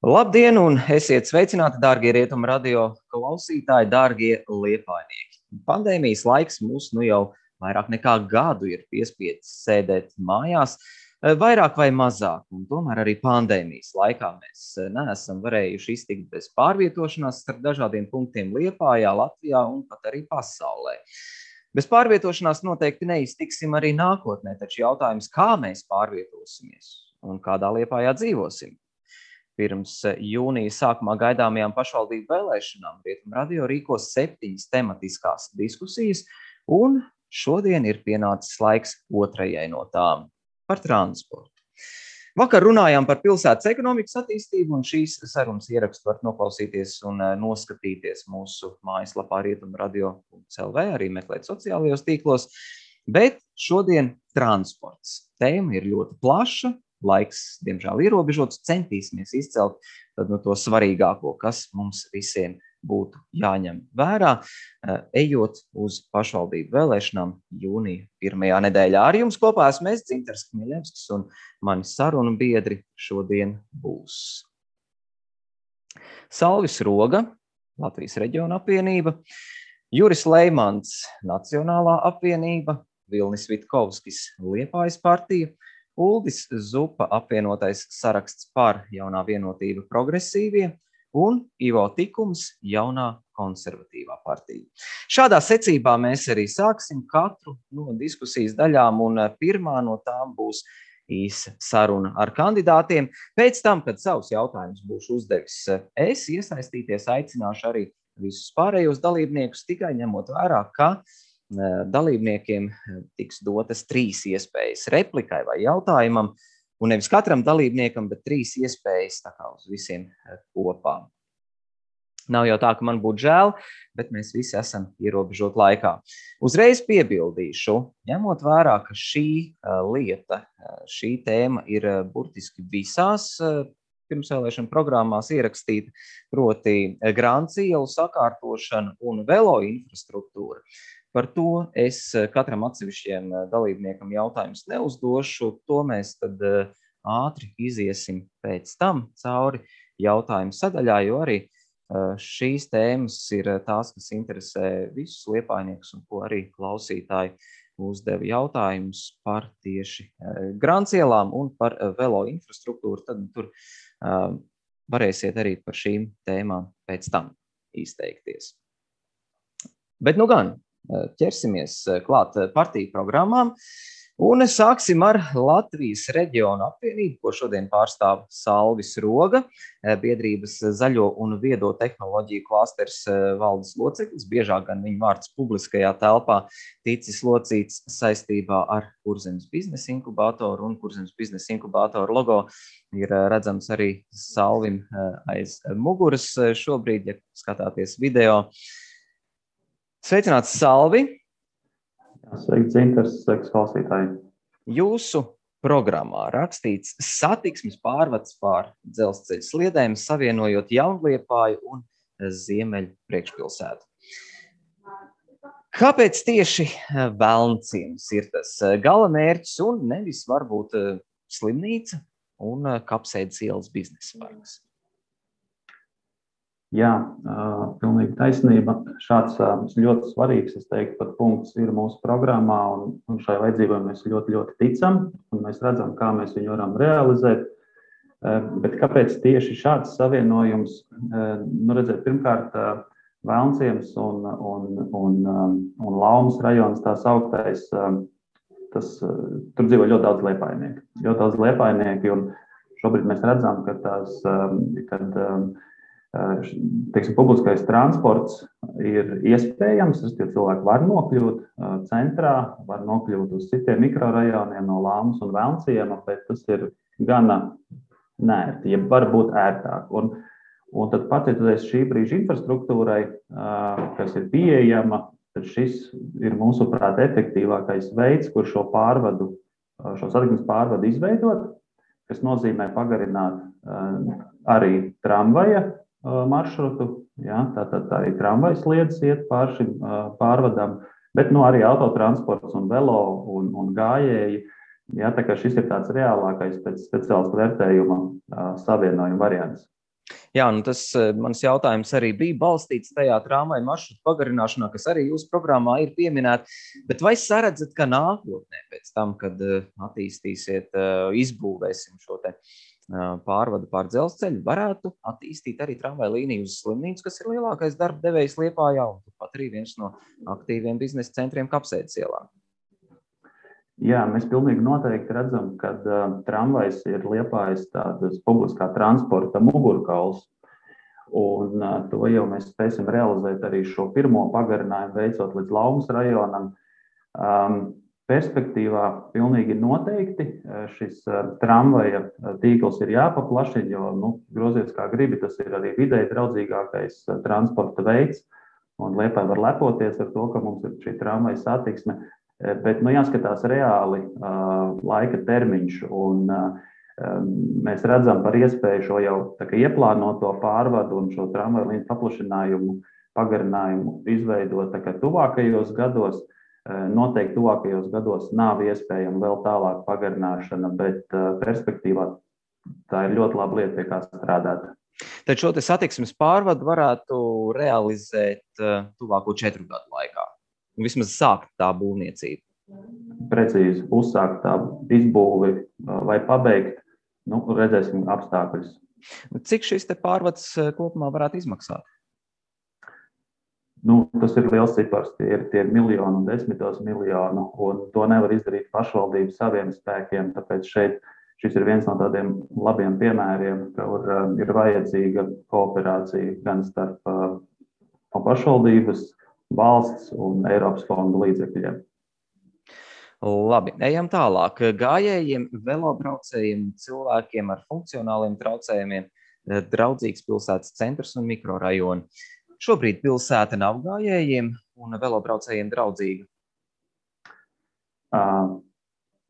Labdien un esiet sveicināti, dārgie Rietumu radio klausītāji, dārgie liepājnieki. Pandēmijas laiks mūs jau vairāk nekā gadu ir piespiedis sēdēt mājās, vairāk vai mazāk, un tomēr arī pandēmijas laikā mēs neesam varējuši iztikt bez pārvietošanās starp dažādiem punktiem Liepājā, Latvijā un pat arī pasaulē. Bez pārvietošanās noteikti neiztiksim arī nākotnē, taču jautājums, kā mēs pārvietosimies un kādā Liepājā dzīvosim. Pirms jūnija sākumā gaidāmajām pašvaldību vēlēšanām Rietumu radio rīkos 7 tematiskās diskusijas, un šodien ir pienācis laiks otrajai no tām – par transportu. Vakar runājām par pilsētas ekonomikas attīstību, un šīs sarunas ierakstu var noklausīties un noskatīties mūsu mājaslapā rietumradio.lv, arī meklēt sociālajos tīklos, bet šodien transports. Tēma ir ļoti plaša. Laiks, diemžēl, ierobežots, centīsimies izcelt to svarīgāko, kas mums visiem būtu jāņem vērā, ejot uz pašvaldību vēlēšanām jūnija pirmajā nedēļā. Ar jums kopā esmu es, Dzintars Kmiļevskis, un mani sarunu biedri šodien būs Salvis Roga, Latvijas reģiona apvienība, Juris Leimans, Nacionālā apvienība, Vilnis Vitkovskis, Liepājas partija, Uldis Zupa, apvienotais saraksts par Jaunā vienotība progresīvie un Ivo Tikums, Jaunā konservatīvā partija. Šādā secībā mēs arī sāksim katru no diskusijas daļām, un pirmā no tām būs īsa saruna ar kandidātiem. Pēc tam, kad savus jautājumus būšu uzdevis es, iesaistīties aicināšu arī visus pārējos dalībniekus, tikai ņemot vērā, ka dalībniekiem tiks dotas 3 iespējas replikai vai jautājumam, un nevis katram dalībniekam, bet 3 iespējas tā kā uz visiem kopā. Nav jau tā, ka man būtu žēl, bet mēs visi esam ierobežot laikā. Uzreiz piebildīšu, ņemot vērā, ka šī lieta, šī tēma ir burtiski visās pirmsvēlēšana programmās ierakstīta, proti Grants ielu sakārtošana un velo infrastruktūra. Par to es katram atsevišķiem dalībniekam jautājumus neuzdošu, to mēs tad ātri iziesim pēc tam cauri jautājumu sadaļā, jo arī šīs tēmas ir tās, kas interesē visus liepājniekus un ko arī klausītāji uzdeva jautājumus par tieši Grants ielām un par velo infrastruktūru, tad tur varēsiet arī par šīm tēmām pēc tam izteikties. Bet nu gan, ķersimies klāt partiju programmām un sāksim ar Latvijas reģiona apvienību, ko šodien pārstāv Salvis Roga, biedrības zaļo un viedo tehnoloģiju klasters valdes loceklis, biežāk gan viņa vārds publiskajā telpā ticis locīts saistībā ar Kurzemes biznesa inkubātoru, un Kurzemes biznesa inkubātoru logo ir redzams arī Salvim aiz muguras šobrīd, ja skatāties video. Sveicināts, Salvi! Sveiks, Dzintars, sveiks, klausītāji! Jūsu programmā rakstīts satiksmes pārvads pār dzelzceļa sliedēm, savienojot Jaunliepāju un Ziemeļu priekšpilsētu. Kāpēc tieši Velnciems ir tas gala mērķis un nevis varbūt slimnīca un Kapsēdes ielas biznesa parks? Jā, pilnīgi taisnība. Šāds ļoti svarīgs, es teiktu, pat punkts ir mūsu programmā, un šai vajadzībai mēs ļoti, ļoti ticam, un mēs redzam, kā mēs viņu varam realizēt. Bet kāpēc tieši šāds savienojums? Redzēt, pirmkārt, Velnciems un Laumas rajons, tās augtais, tur dzīvo ļoti daudz liepājnieki. Ļoti daudz liepājnieki, un šobrīd mēs redzam, ka publiskais transports ir iespējams, tie cilvēki var nokļūt centrā, var nokļūt uz citiem mikrorajoniem no Laumas un Velnciema, bet tas ir gana neērti, ja var būt ērtāk. Un tad pateicoties šī brīža infrastruktūrai, kas ir pieejama, tad šis ir mūsuprāt efektīvākais veids, kur šo satiksmes pārvadu izveidot, kas nozīmē pagarināt arī tramvaja maršrutu, jā, tātad arī tramvajas sliedes iet pār šim pārvadam, bet arī autotransports un velo un gājēji, jā, tā kā šis ir tāds reālākais pēc speciālistu vērtējuma savienojuma variants. Jā, nu tas mans jautājums arī bija balstīts tajā tramvaju maršrutu pagarināšanā, kas arī jūsu programmā ir pieminēta. Bet vai saredzat, ka nākotnē pēc tam, kad attīstīsiet, izbūvēsim šo te pārvadu pār dzelzceļu, varētu attīstīt arī tramvaju līniju uz Slimnīcu, kas ir lielākais darba devējs Liepājā un pat arī viens no aktīviem biznesa centriem Kapsētas ielā? Jā, mēs pilnīgi noteikti redzam, ka tramvajs ir Liepājas tādas publiskā transporta mugurkauls. Un to jau mēs spēsim realizēt arī šo pirmo pagarinājumu veicot līdz Laumas rajonam. Perspektīvā pilnīgi noteikti šis tramvaja tīkls ir jāpaplašina, jo, groziet kā gribi, tas ir arī vidēji draudzīgākais transporta veids. Un Liepāja var lepoties ar to, ka mums ir šī tramvaja satiksme. Bet jāskatās reāli laika termiņš, un mēs redzam par iespēju šo jau ieplānoto pārvadu un šo tramvaju līniju paplašinājumu, pagarinājumu izveidot tuvākajos gados. Noteikti tuvākajos gados nav iespējama vēl tālāk pagarināšana, bet perspektīvā tā ir ļoti laba lieta, pie kā strādāt. Tad šo te satiksmes pārvadu varētu realizēt tuvāko 4 gadu laikā. Vismaz sākt tā būvniecība. Precīzi, uzsākt tā izbūvi vai pabeigt, redzēsim apstākļus. Cik šis te pārvads kopumā varētu izmaksāt? Tas ir liels cipars, tie ir miljoni un desmitos miljonu, un to nevar izdarīt pašvaldību saviem spēkiem, tāpēc šis ir viens no tādiem labiem piemēriem, kur ir vajadzīga kooperācija gan starp pašvaldības, valsts un Eiropas fondu līdzekļiem. Labi, ejam tālāk. Gājējiem, velobraucējiem, cilvēkiem ar funkcionāliem traucējumiem draudzīgs pilsētas centrs un mikrorajoni. Šobrīd pilsēta nav gājējiem un velobraucējiem draudzīga?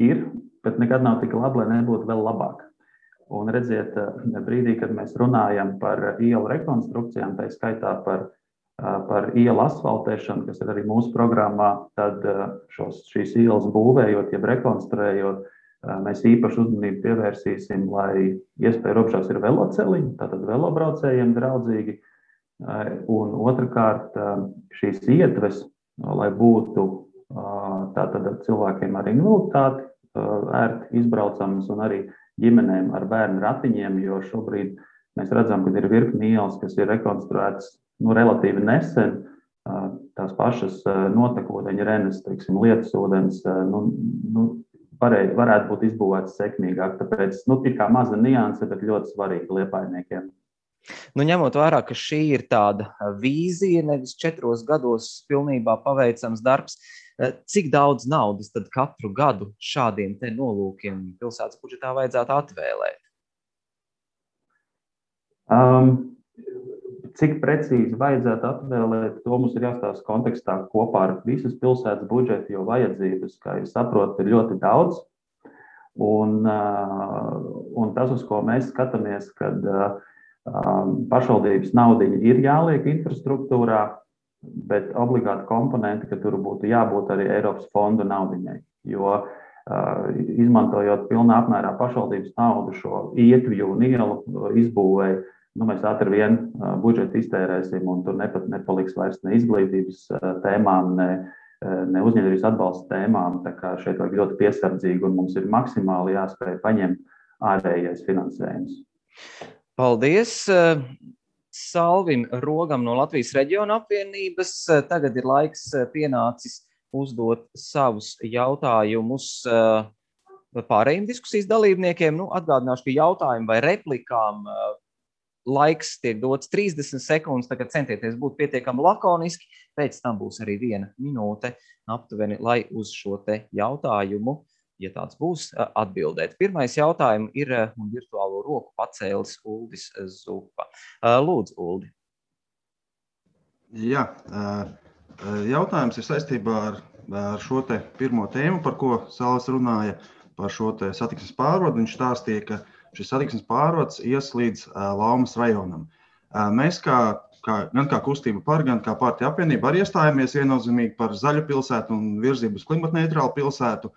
Ir, bet nekad nav tik labi, lai nebūtu vēl labāk. Un redziet, brīdī, kad mēs runājam par ielu rekonstrukcijām, tā skaitā par ielu asfaltēšanu, kas ir arī mūsu programmā, tad šīs ielas būvējot, jeb rekonstruējot, mēs īpaši uzmanību pievērsīsim, lai iespēja robežās ir veloceliņi, tātad velobraucējiem draudzīgi, un otrkārt šīs ietves, lai būtu tātad cilvēkiem ar invaliditāti ērti izbraucamas un arī ģimenēm ar bērnu ratiņiem, jo šobrīd mēs redzam, ka ir virkni ielas, kas ir rekonstruētas relatīvi nesen, tās pašas notekūdeņa renes, lietusūdens, varētu būt izbūvētas sekmīgāk. Tāpēc ir kā maza nianse, bet ļoti svarīga liepājniekiem. Ņemot vērā, ka šī ir tāda vīzija, nevis 4 gados pilnībā paveicams darbs, cik daudz naudas tad katru gadu šādiem te nolūkiem pilsētas budžetā vajadzētu atvēlēt? Cik precīzi vajadzētu atvēlēt, to mums ir jāstāsta kontekstā kopā ar visas pilsētas budžetu, jo vajadzības, kā jūs saprotat, ir ļoti daudz. Un tas, uz ko mēs skatāmies, kad pašvaldības naudiņa ir jāliek infrastruktūrā, bet obligāti komponenti, ka tur būtu jābūt arī Eiropas fondu naudiņai. Jo izmantojot pilnā apmērā pašvaldības naudu šo ietvju un ielu izbūvēju, mēs ātri vien budžetu iztērēsim, un tur nepaliks vairs ne izglītības tēmām, ne uzņēmības atbalsta tēmām. Tā kā šeit vajag ļoti piesardzīgi, un mums ir maksimāli jāspēj paņemt ārējais finansējums. Paldies Salvim Rogam no Latvijas reģiona apvienības. Tagad ir laiks pienācis uzdot savus jautājumus pārējiem diskusijas dalībniekiem. Atgādināšu, ka jautājumu vai replikām laiks tiek dots 30 sekundes, tagad centieties būt pietiekami lakoniski, pēc tam būs arī 1 minūte aptuveni, lai uz šo te jautājumu, ja tāds būs, atbildēt. Pirmais jautājums ir virtuālo roku pacēlis Uldis Zupa. Lūdzu, Uldi. Jā, jautājums ir saistībā ar šo te pirmo tēmu, par ko Salvis runāja, par šo te satiksmes pārvadu. Viņš stāstīja, ka šis satiksmes pārvads ies līdz Laumas rajonam. Mēs gan kā kustība par, gan kā partija apvienība arī iestājāmies viennozīmīgi par zaļu pilsētu un virzību uz klimatneitrālu pilsētu.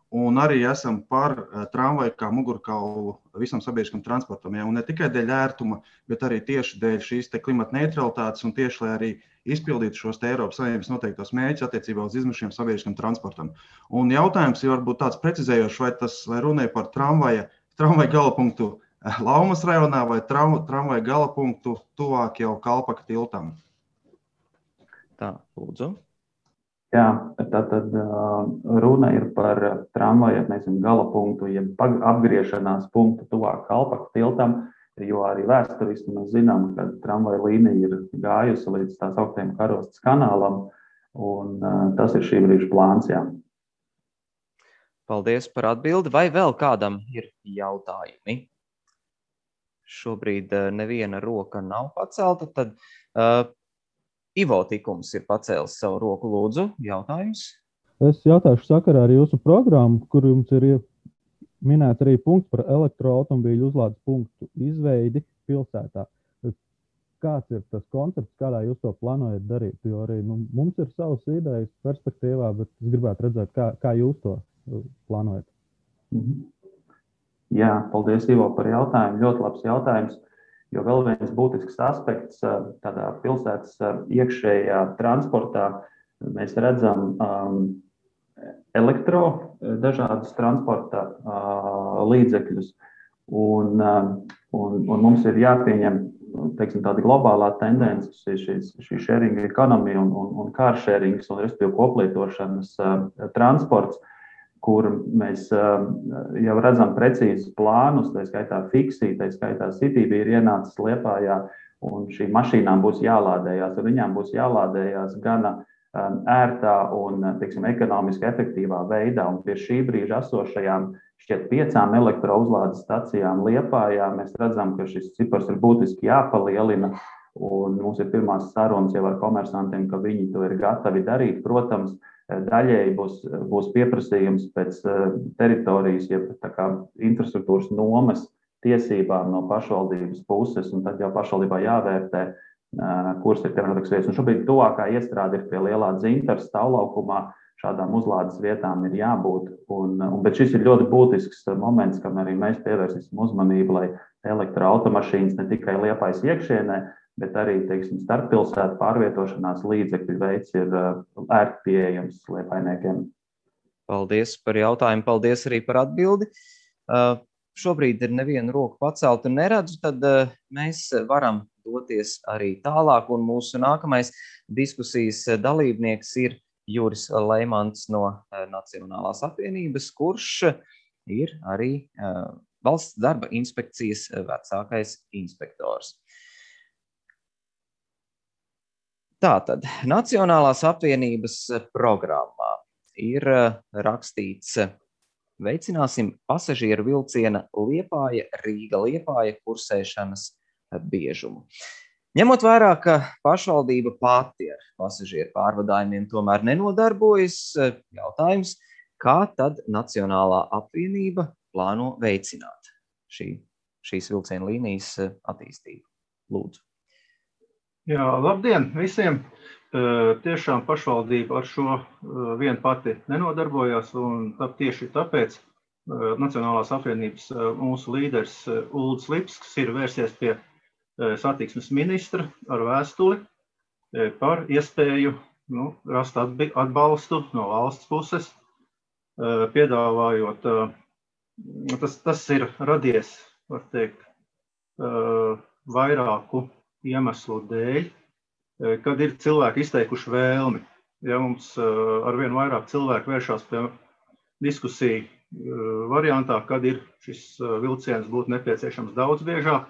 un arī esam par tramvaju kā mugurkaulu visam sabiedriskam transportam. Ja? Un ne tikai dēļ ērtuma, bet arī tieši dēļ šīs klimata neutralitātes un tieši, lai arī izpildītu šos Eiropas Savienības noteiktos mērķus attiecībā uz izmešiem sabiedriskam transportam. Un jautājums ir varbūt tāds precizējošs, vai runāja par tramvaju galapunktu Laumas rajonā vai tramvaju galapunktu tuvāk jau Kalpaka tiltam? Tā, lūdzu. Jā, tātad runa ir par tramvaju, galapunktu, jeb apgriešanās punktu tuvāk Kalpaka tiltam, jo arī vēsturiski mēs zinām, ka tramvaju līnija ir gājusi līdz tās augtajam Karostas kanālam, un tas ir šī brīža plāns, jā. Paldies par atbildi. Vai vēl kādam ir jautājumi? Šobrīd neviena roka nav pacelta, tad Ivo Tikums ir pacēlis savu roku. Lūdzu, jautājums? Es jautāšu sakarā ar jūsu programmu, kur jums ir minēts arī punkts par elektroautomobīļu uzlādes punktu izveidi pilsētā. Kāds ir tas koncepts, kādā jūs to plānojat darīt? Jo arī mums ir savas idejas perspektīvā, bet es gribētu redzēt, kā jūs to plānojat. Jā, paldies, Ivo, par jautājumu. Ļoti labs jautājums, jo vēl viens būtisks aspekts tādā pilsētas iekšējā transportā. Mēs redzam dažādus transporta līdzekļus, un mums ir jāpieņem, tāda globālā tendence, šī sharing economy un car sharing, un respektīvi koplietošanas transports, kur mēs jau redzam precīzus plānus, tā skaitā Fiksi, tā skaitā Citybee ir ienācis Liepājā, un šīm mašīnām būs jālādējās, un viņām būs jālādējās gana ērtā un, ekonomiski efektīvā veidā, un pie šī brīža esošajām šķiet 5 elektrouzlādes stacijām Liepājā mēs redzam, ka šis cipars ir būtiski jāpalielina, un mums ir pirmās sarunas jau ar komersantiem, ka viņi to ir gatavi darīt. Protams, daļēji būs pieprasījums pēc teritorijas, jeb infrastruktūras nomas tiesībām no pašvaldības puses, un tad jau pašvaldībā jāvērtē, kuras ir piemērotākas vietas. Un šobrīd tuvākā iestrāde ir pie lielā Dzintara stāvlaukumā, šādām uzlādes vietām ir jābūt. Bet šis ir ļoti būtisks moments, kam arī mēs pievērsīsim uzmanību, lai elektroautomašīnas ne tikai Liepājas iekšienē, bet arī, starppilsētu pārvietošanās līdzekļu veids ir ērti pieejams liepājniekiem. Paldies par jautājumu, paldies arī par atbildi. Šobrīd ir neviena roka pacelta un neredzu, tad mēs varam doties arī tālāk, un mūsu nākamais diskusijas dalībnieks ir Juris Leimants no Nacionālās apvienības, kurš ir arī Valsts darba inspekcijas vecākais inspektors. Tātad, Nacionālās apvienības programmā ir rakstīts: veicināsim pasažieru vilciena Liepāja-Rīga-Liepāja kursēšanas biežumu. Ņemot vērā, ka pašvaldība pati ar pasažieru pārvadājumiem tomēr nenodarbojas, jautājums, kā tad Nacionālā apvienība plāno veicināt šīs vilciena līnijas attīstību? Lūdzu. Jā, labdien visiem! Tiešām pašvaldība ar šo vien pati nenodarbojās, un tieši tāpēc Nacionālās apvienības mūsu līderis Uldis Lipskis ir vērsies pie satiksmes ministra ar vēstuli par iespēju rast atbalstu no valsts puses, piedāvājot, tas ir radies, var teikt, vairāku iemeslu dēļ, kad ir cilvēki izteikuši vēlmi. Ja mums arvien vairāk cilvēku vēršās pie diskusiju variantā, kad ir šis vilciens būtu nepieciešams daudz biežāk,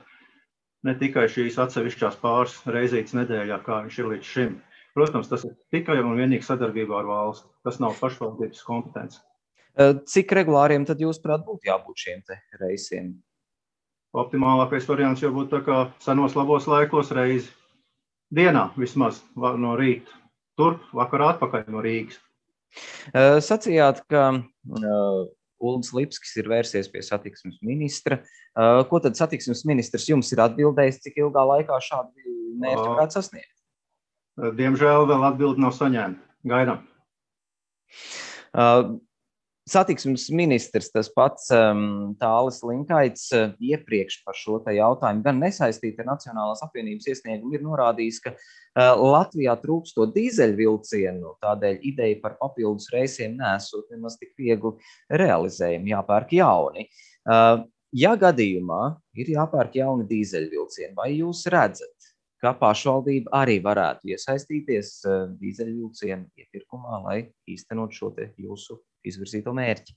ne tikai šīs atsevišķās pāris reizītes nedēļā, kā viņš ir līdz šim. Protams, tas ir tikai un vienīgi sadarbībā ar valsti. Tas nav pašvaldības kompetence. Cik regulāriem tad jūs prāt būtu jābūt šiem te reisiem? Optimālākais variants jau būtu tā kā senos labos laikos reizi dienā vismaz no rīta. Turp, vakarā atpakaļ no Rīgas. Sacījāt, ka Uldis Lipskis ir vērsies pie satiksmes ministra. Ko tad satiksmes ministrs jums ir atbildējis, cik ilgā laikā šādu mērķi varētu sasniegt? Diemžēl vēl atbildi nav saņēma. Gaidām. Satiksmes ministrs, tas pats Tālis Linkaits, iepriekš par šo te jautājumu gan nesaistīti ar Nacionālās apvienības iesniegumu ir norādījis, ka Latvijā trūkstot dīzeļvilcienu, tādēļ ideja par papildus reisiem nesot nemaz tik viegli realizējumi, jāpērk jauni. Ja gadījumā ir jāpērk jauni dīzeļvilcieni, vai jūs redzat, ka pašvaldība arī varētu iesaistīties dīzeļvilcienu iepirkumā, lai īstenot šo te jūsu izvirzīto mērķi?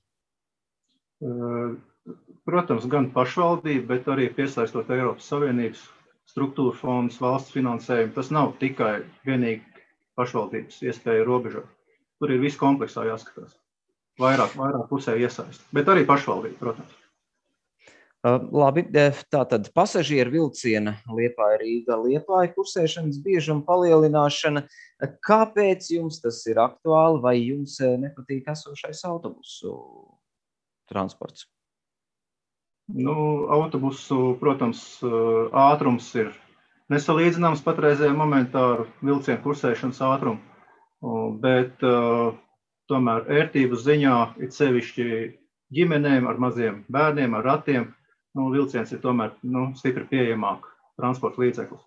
Protams, gan pašvaldība, bet arī piesaistot Eiropas Savienības struktūra fondus, valsts finansējumu. Tas nav tikai vienīgi pašvaldības iespēja robežot. Tur ir viss kompleksā jāskatās. Vairāk pusē iesaist. Bet arī pašvaldība, protams. Labi, tātad pasažieru vilciena Liepāja-Rīga, Liepāja kursēšanas biežuma palielināšana. Kāpēc jums tas ir aktuāli, vai jums nepatīk esošais autobusu transports? Autobusu, protams, ātrums ir nesalīdzināms patreizējā momentā ar vilcienu kursēšanas ātrumu, bet tomēr ērtības ziņā ir sevišķi ģimenēm ar maziem bērniem, ar ratiem. Vilciens ir tomēr stipri pieejamāk transporta līdzeklis.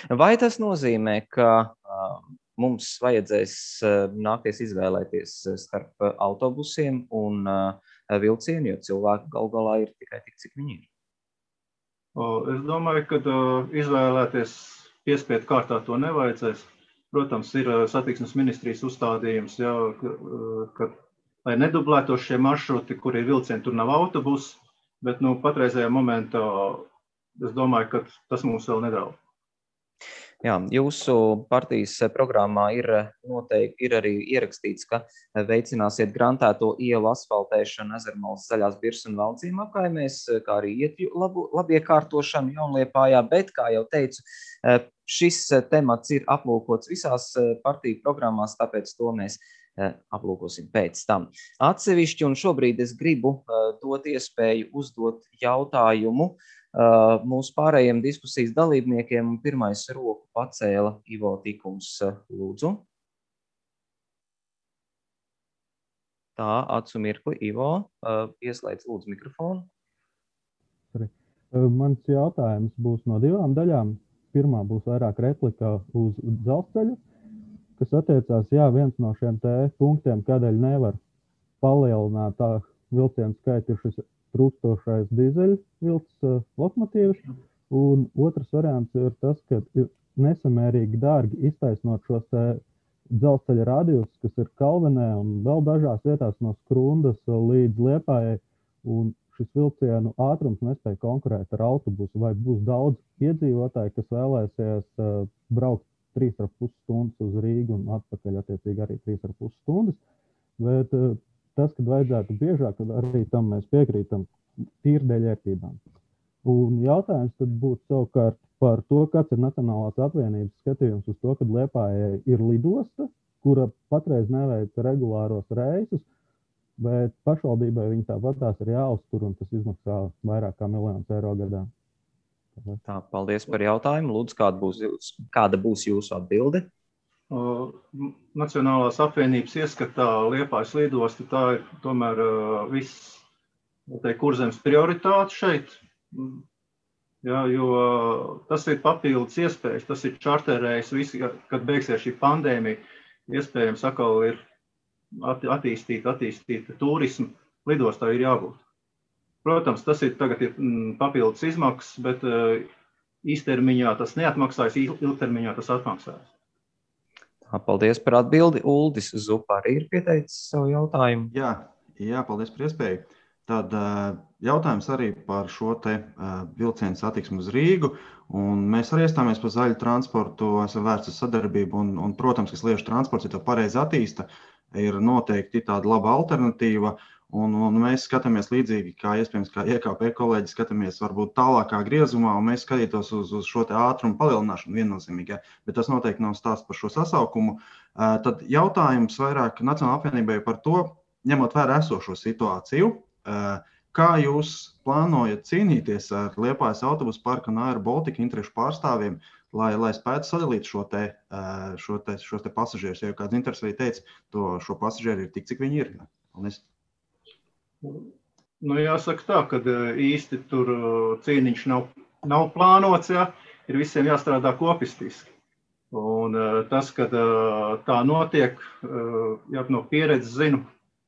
Vai tas nozīmē, ka mums vajadzēs nākties izvēlēties starp autobusiem un vilcienu, jo cilvēki gal galā ir tikai tik, cik viņi ir? Es domāju, ka izvēlēties piespiedu kārtā to nevajadzēs. Protams, ir satiksmes ministrijas uzstādījums, ka, lai nedublētos šie maršruti, kur ir vilcieni, tur nav autobusi. Bet patreizējā momentā es domāju, ka tas mums vēl nedraud. Jā, jūsu partijas programmā ir arī ierakstīts, ka veicināsiet grantēto ielu asfaltēšanu Ezermalas, Zaļās Birzas un Valcīm apkaimēs, kā arī ietju labiekārtošanu Jaunliepājā, bet, kā jau teicu, šis temats ir aplūkots visās partiju programmās, tāpēc to mēs aplūkosim pēc tam. Atsevišķi, un šobrīd es gribu dot iespēju uzdot jautājumu mūsu pārējiem diskusijas dalībniekiem, un pirmais roku pacēla Ivo Tikums. Lūdzu. Tā, acu mirkli, Ivo, ieslēdz lūdzu mikrofonu. Mans jautājums būs no divām daļām. Pirmā būs vairāk replika uz dzelzceļu, kas attiecās, viens no šiem punktiem, kādēļ nevar palielināt tā vilcienu skaitu, ir šis trūkstošais dīzeļvilces lokomotīvs. Un otrs variants ir tas, ka ir nesamērīgi dārgi iztaisnot šos dzelzceļa radius, kas ir Kalvenē un vēl dažās vietās no Skrundas līdz Liepājai. Un šis vilcienu ātrums nespēja konkurēt ar autobusu. Vai būs daudz iedzīvotāji, kas vēlēsies braukt 3,5 stundas uz Rīgu un atpakaļ attiecīgi arī 3,5 stundas. Bet tas, kad vajadzētu biežāk, arī tam mēs piekrītam tīri dēļ ērtībām. Un jautājums tad būtu savukārt par to, kāds ir Nacionālās apvienības skatījums uz to, kad Liepājai ir lidosta, kura patreiz neveic regulāros reisus, bet pašvaldībai viņi tāpatās ir jāuztur, un tas izmaksā vairāk kā miljonus eiro gadā. Tā, paldies par jautājumu. Lūdzu, kāda būs jūsu atbilde? Nacionālās apvienības ieskatā Liepājas lidosta, tā ir tomēr viss Kurzemes prioritāte šeit. Jā, jo tas ir papildus iespējas, tas ir čarterējs, kad beigsies šī pandēmija, iespējams atkal ir attīstīta turismu, lidostā ir jābūt. Protams, tas ir tagad ir papildus izmaksas, bet īstermiņā tas neatmaksājas, ilgtermiņā tas atmaksājas. Paldies par atbildi. Uldis Zupa arī ir pieteicis savu jautājumu. Jā, paldies par iespēju. Tad jautājums arī par šo te vilcienu satiksmu uz Rīgu. Un mēs arī iestāmies par zaļu transportu, esam vērts uz sadarbību. Un, protams, ka sliežu transports, ja to pareizi attīsta, ir noteikti tāda laba alternatīva. Un mēs skatāmies līdzīgi, kā iespējams, kā IKP kolēģi skatāmies varbūt tālākā griezumā, un mēs skatītos uz šo te ātrumu palielināšanu viennozīmīgi, bet tas noteikti nav stāsts par šo sasaukumu. Tad jautājums vairāk Nacionālajai apvienībai par to, ņemot vērā esošo situāciju, kā jūs plānojat cīnīties ar Liepājas autobusu parka un Air Baltica interešu pārstāvjiem, lai spētu sadalīt šo te pasažierus, ja kāds interesi arī teica, šo pasažieru ir tik, cik viņi ir. Paldies. Nu, jāsaka tā, ka īsti tur cīniņš nav plānots, ja, ir visiem jāstrādā kopistiski. Un tas, kad tā notiek, ja no pieredzes zinu,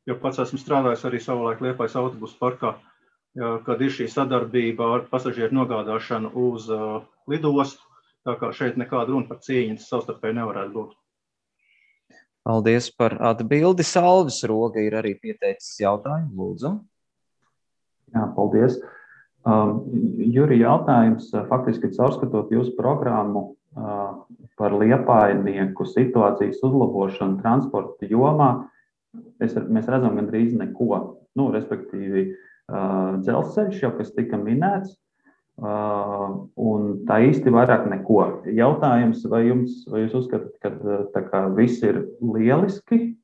jo pats esmu strādājis arī savulaik Liepājas autobusu parkā, ja, kad ir šī sadarbība ar pasažieru nogādāšanu uz lidostu, tā kā šeit nekāda runa par cīņu savstarpēji nevarētu būt. Paldies par atbildi. Salvis Roga ir arī pieteicis jautājumu, lūdzu. Jā, paldies. Juri, jautājums faktiski caurskatot jūsu programmu par liepājnieku situācijas uzlabošanu transporta jomā. Mēs redzam gandrīz neko. Respektīvi, dzelzceļš jau, kas tika minēts, un tā īsti vairāk neko. Jautājums, vai jūs uzskatāt, ka tā kā viss ir lieliski,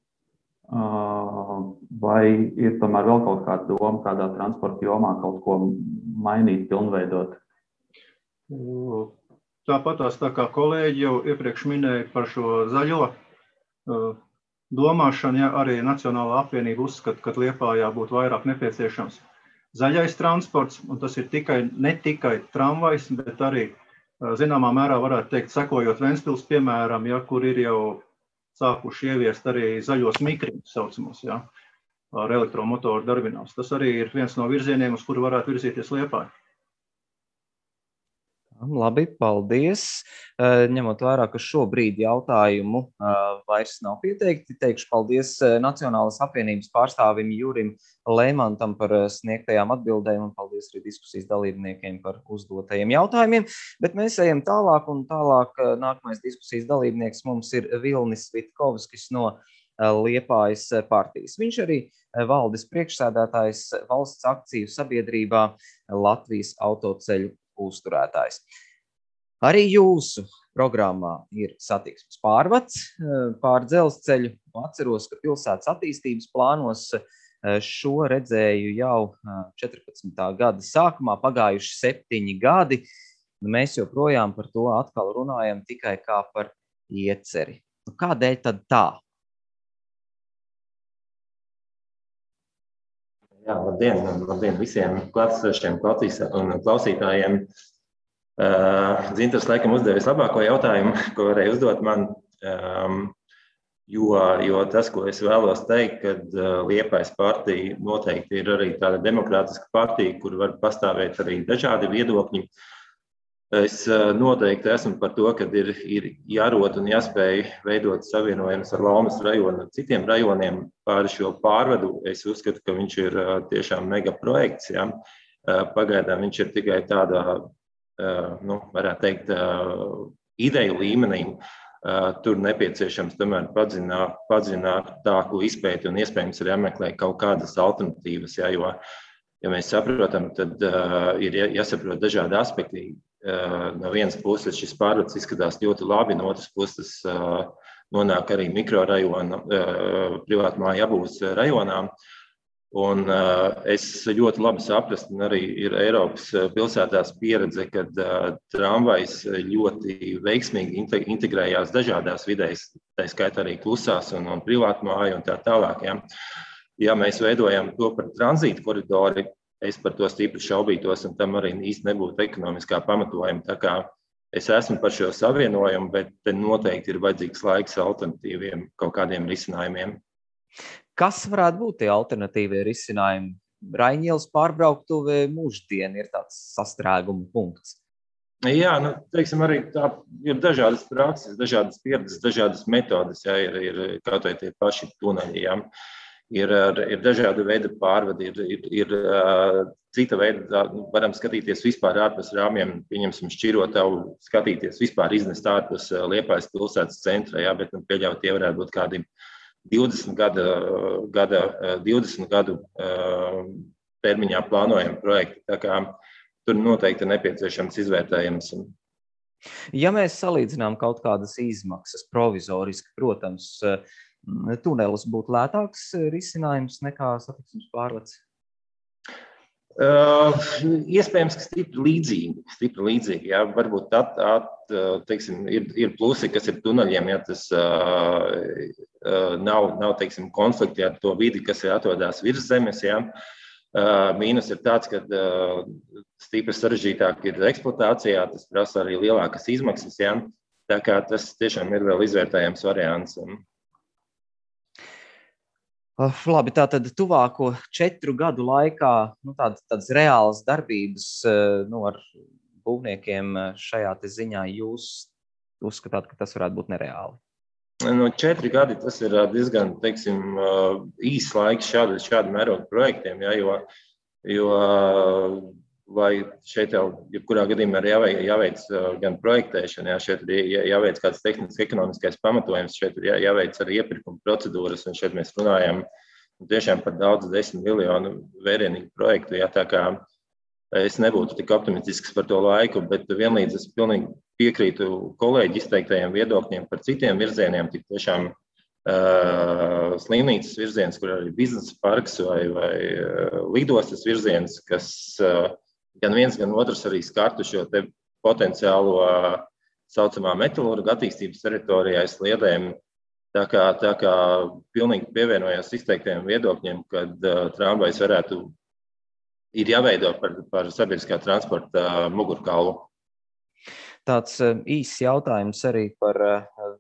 vai ir tomēr vēl kaut kāda doma, kādā transporta jomā kaut ko mainīt, pilnveidot? Tāpatās tā kā kolēģi jau iepriekš minēja par šo zaļo domāšanu, ja arī Nacionālā apvienība uzskata, ka Liepājā būtu vairāk nepieciešams zaļais transports, un tas ir ne tikai tramvajs, bet arī zināmā mērā varētu teikt, sekojot Ventspils piemēram, ja, kur ir jau sākuši ieviest arī zaļos mikriņus saucamos, ja, ar elektromotoru darbinās. Tas arī ir viens no virzieniem, uz kuru varētu virzīties Liepāja. Labi, paldies. Ņemot vērā, ka šobrīd jautājumu vairs nav pieteikti, teikšu paldies Nacionālas apvienības pārstāvim Jurim Leimantam par sniegtajām atbildēm un paldies arī diskusijas dalībniekiem par uzdotajiem jautājumiem. Bet mēs ejam tālāk un tālāk nākamais diskusijas dalībnieks mums ir Vilnis Vitkovskis no Liepājas partijas. Viņš arī valdes priekšsēdētājs valsts akciju sabiedrībā Latvijas autoceļu uzturētājs. Arī jūsu programmā ir satiksmes pārvads pār dzelzceļu. Atceros, ka pilsētas attīstības plānos šo redzēju jau 14. gada sākumā, pagājuši 7 gadi. Mēs joprojām par to atkal runājam tikai kā par ieceri. Kādēļ tad tā? Jā, labdien visiem klātesošiem klausītājiem. Dzintars laikam uzdevis labāko jautājumu, ko varēja uzdot man, jo tas, ko es vēlos teikt, kad Liepājas partija noteikti ir arī tāda demokrātiska partija, kur var pastāvēt arī dažādi viedokļi. Es noteikti esmu par to, ka ir jārod un jāspēj veidot savienojumus ar Laumas rajonu un citiem rajoniem pāri šo pārvadu. Es uzskatu, ka viņš ir tiešām mega projekts. Ja? Pagaidām viņš ir tikai tādā, varētu teikt, ideju līmenī. Tur nepieciešams tomēr padziļinātāku izpēti un iespējams ir jāmeklē kaut kādas alternatīvas. Ja? Jo, ja mēs saprotam, tad ir jāsaprot dažādi aspekti. No vienas puses šis pārvads izskatās ļoti labi, no otras puses nonāk arī mikrorajona, privātmāju apbūves rajonā. Un es ļoti labi saprastu, un arī ir Eiropas pilsētās pieredze, kad tramvajs ļoti veiksmīgi integrējās dažādās vidēs, tā skaitā arī klusās un privātmāju un tā tālāk. Ja mēs veidojam to par tranzītu koridori, es par to stipri šaubītos, un tam arī īsti nebūtu ekonomiskā pamatojuma. Tā kā es esmu par šo savienojumu, bet te noteikti ir vajadzīgs laiks alternatīviem kaut kādiem risinājumiem. Kas varētu būt tie alternatīvie risinājumi? Raņielas pārbrauktuve Mūždiena ir tāds sastrēguma punkts. Jā, teiksim, arī tā ir dažādas prakses, dažādas pieredzes, dažādas metodas, ja, ir kaut vai tie paši tuneļi, ja. Ir dažādi veidi pārvadi, ir cita veida, varam skatīties vispār ārpus rāmjiem, pieņemsim Šķirotavu, skatīties vispār iznest ārpus Liepājas pilsētas centra, jā, bet pieļaut tie varētu būt kādi 20 gadu termiņā plānojami projekti, tā kā tur noteikti ir nepieciešams izvērtējums. Ja mēs salīdzinām kaut kādas izmaksas provizoriski, protams, tunelis būtu lētāks risinājums nekā satiksmes pārvads? Iespējams, ka stipri līdzīgi. Jā. Varbūt teiksim, ir plusi, kas ir tuneļiem, ja tas nav teiksim, konflikti ar to vidi, kas ir atrodas virs zemes. Jā. Mīnus ir tāds, ka stipri sarežģītāk ir eksploatācijā, tas prasa arī lielākas izmaksas. Jā. Tā kā tas tiešām ir vēl izvērtējams variants. Labi, tātad tuvāko 4 gadu laikā tādas reālas darbības ar būvniekiem šajā te ziņā jūs uzskatāt, ka tas varētu būt nereāli? 4 gadi tas ir diezgan, teiksim, īsts laiks šādu mērogu projektiem, ja, jo vai šeit jau jebkurā gadījumā ir jāveic gan projektēšana, ja, šeit ir jāveic kāds tehnisks ekonomiskais pamatojums, šeit ir jāveic arī iepirkuma procedūras, un šeit mēs runājam tiešām par daudz 10 miljonu vērienīgu projektu, ja, tā kā es nebūtu tik optimistisks par to laiku, bet vienlīdz es pilnīgi piekrītu kolēģi izteiktajiem viedokļiem par citiem virzieniem, tik tiešām slimnīcas virziens, kur arī biznesa parks vai lidostas virziens, kas gan viens, gan otrs arī skartu šo te potenciālo saucamā metalurga attīstības teritorijā sliedēm. Tā kā pilnīgi pievienojās izteiktajiem viedokļiem, kad tramvajs ir jāveido par sabiedriskā transporta mugurkaulu. Tāds īsts jautājums arī par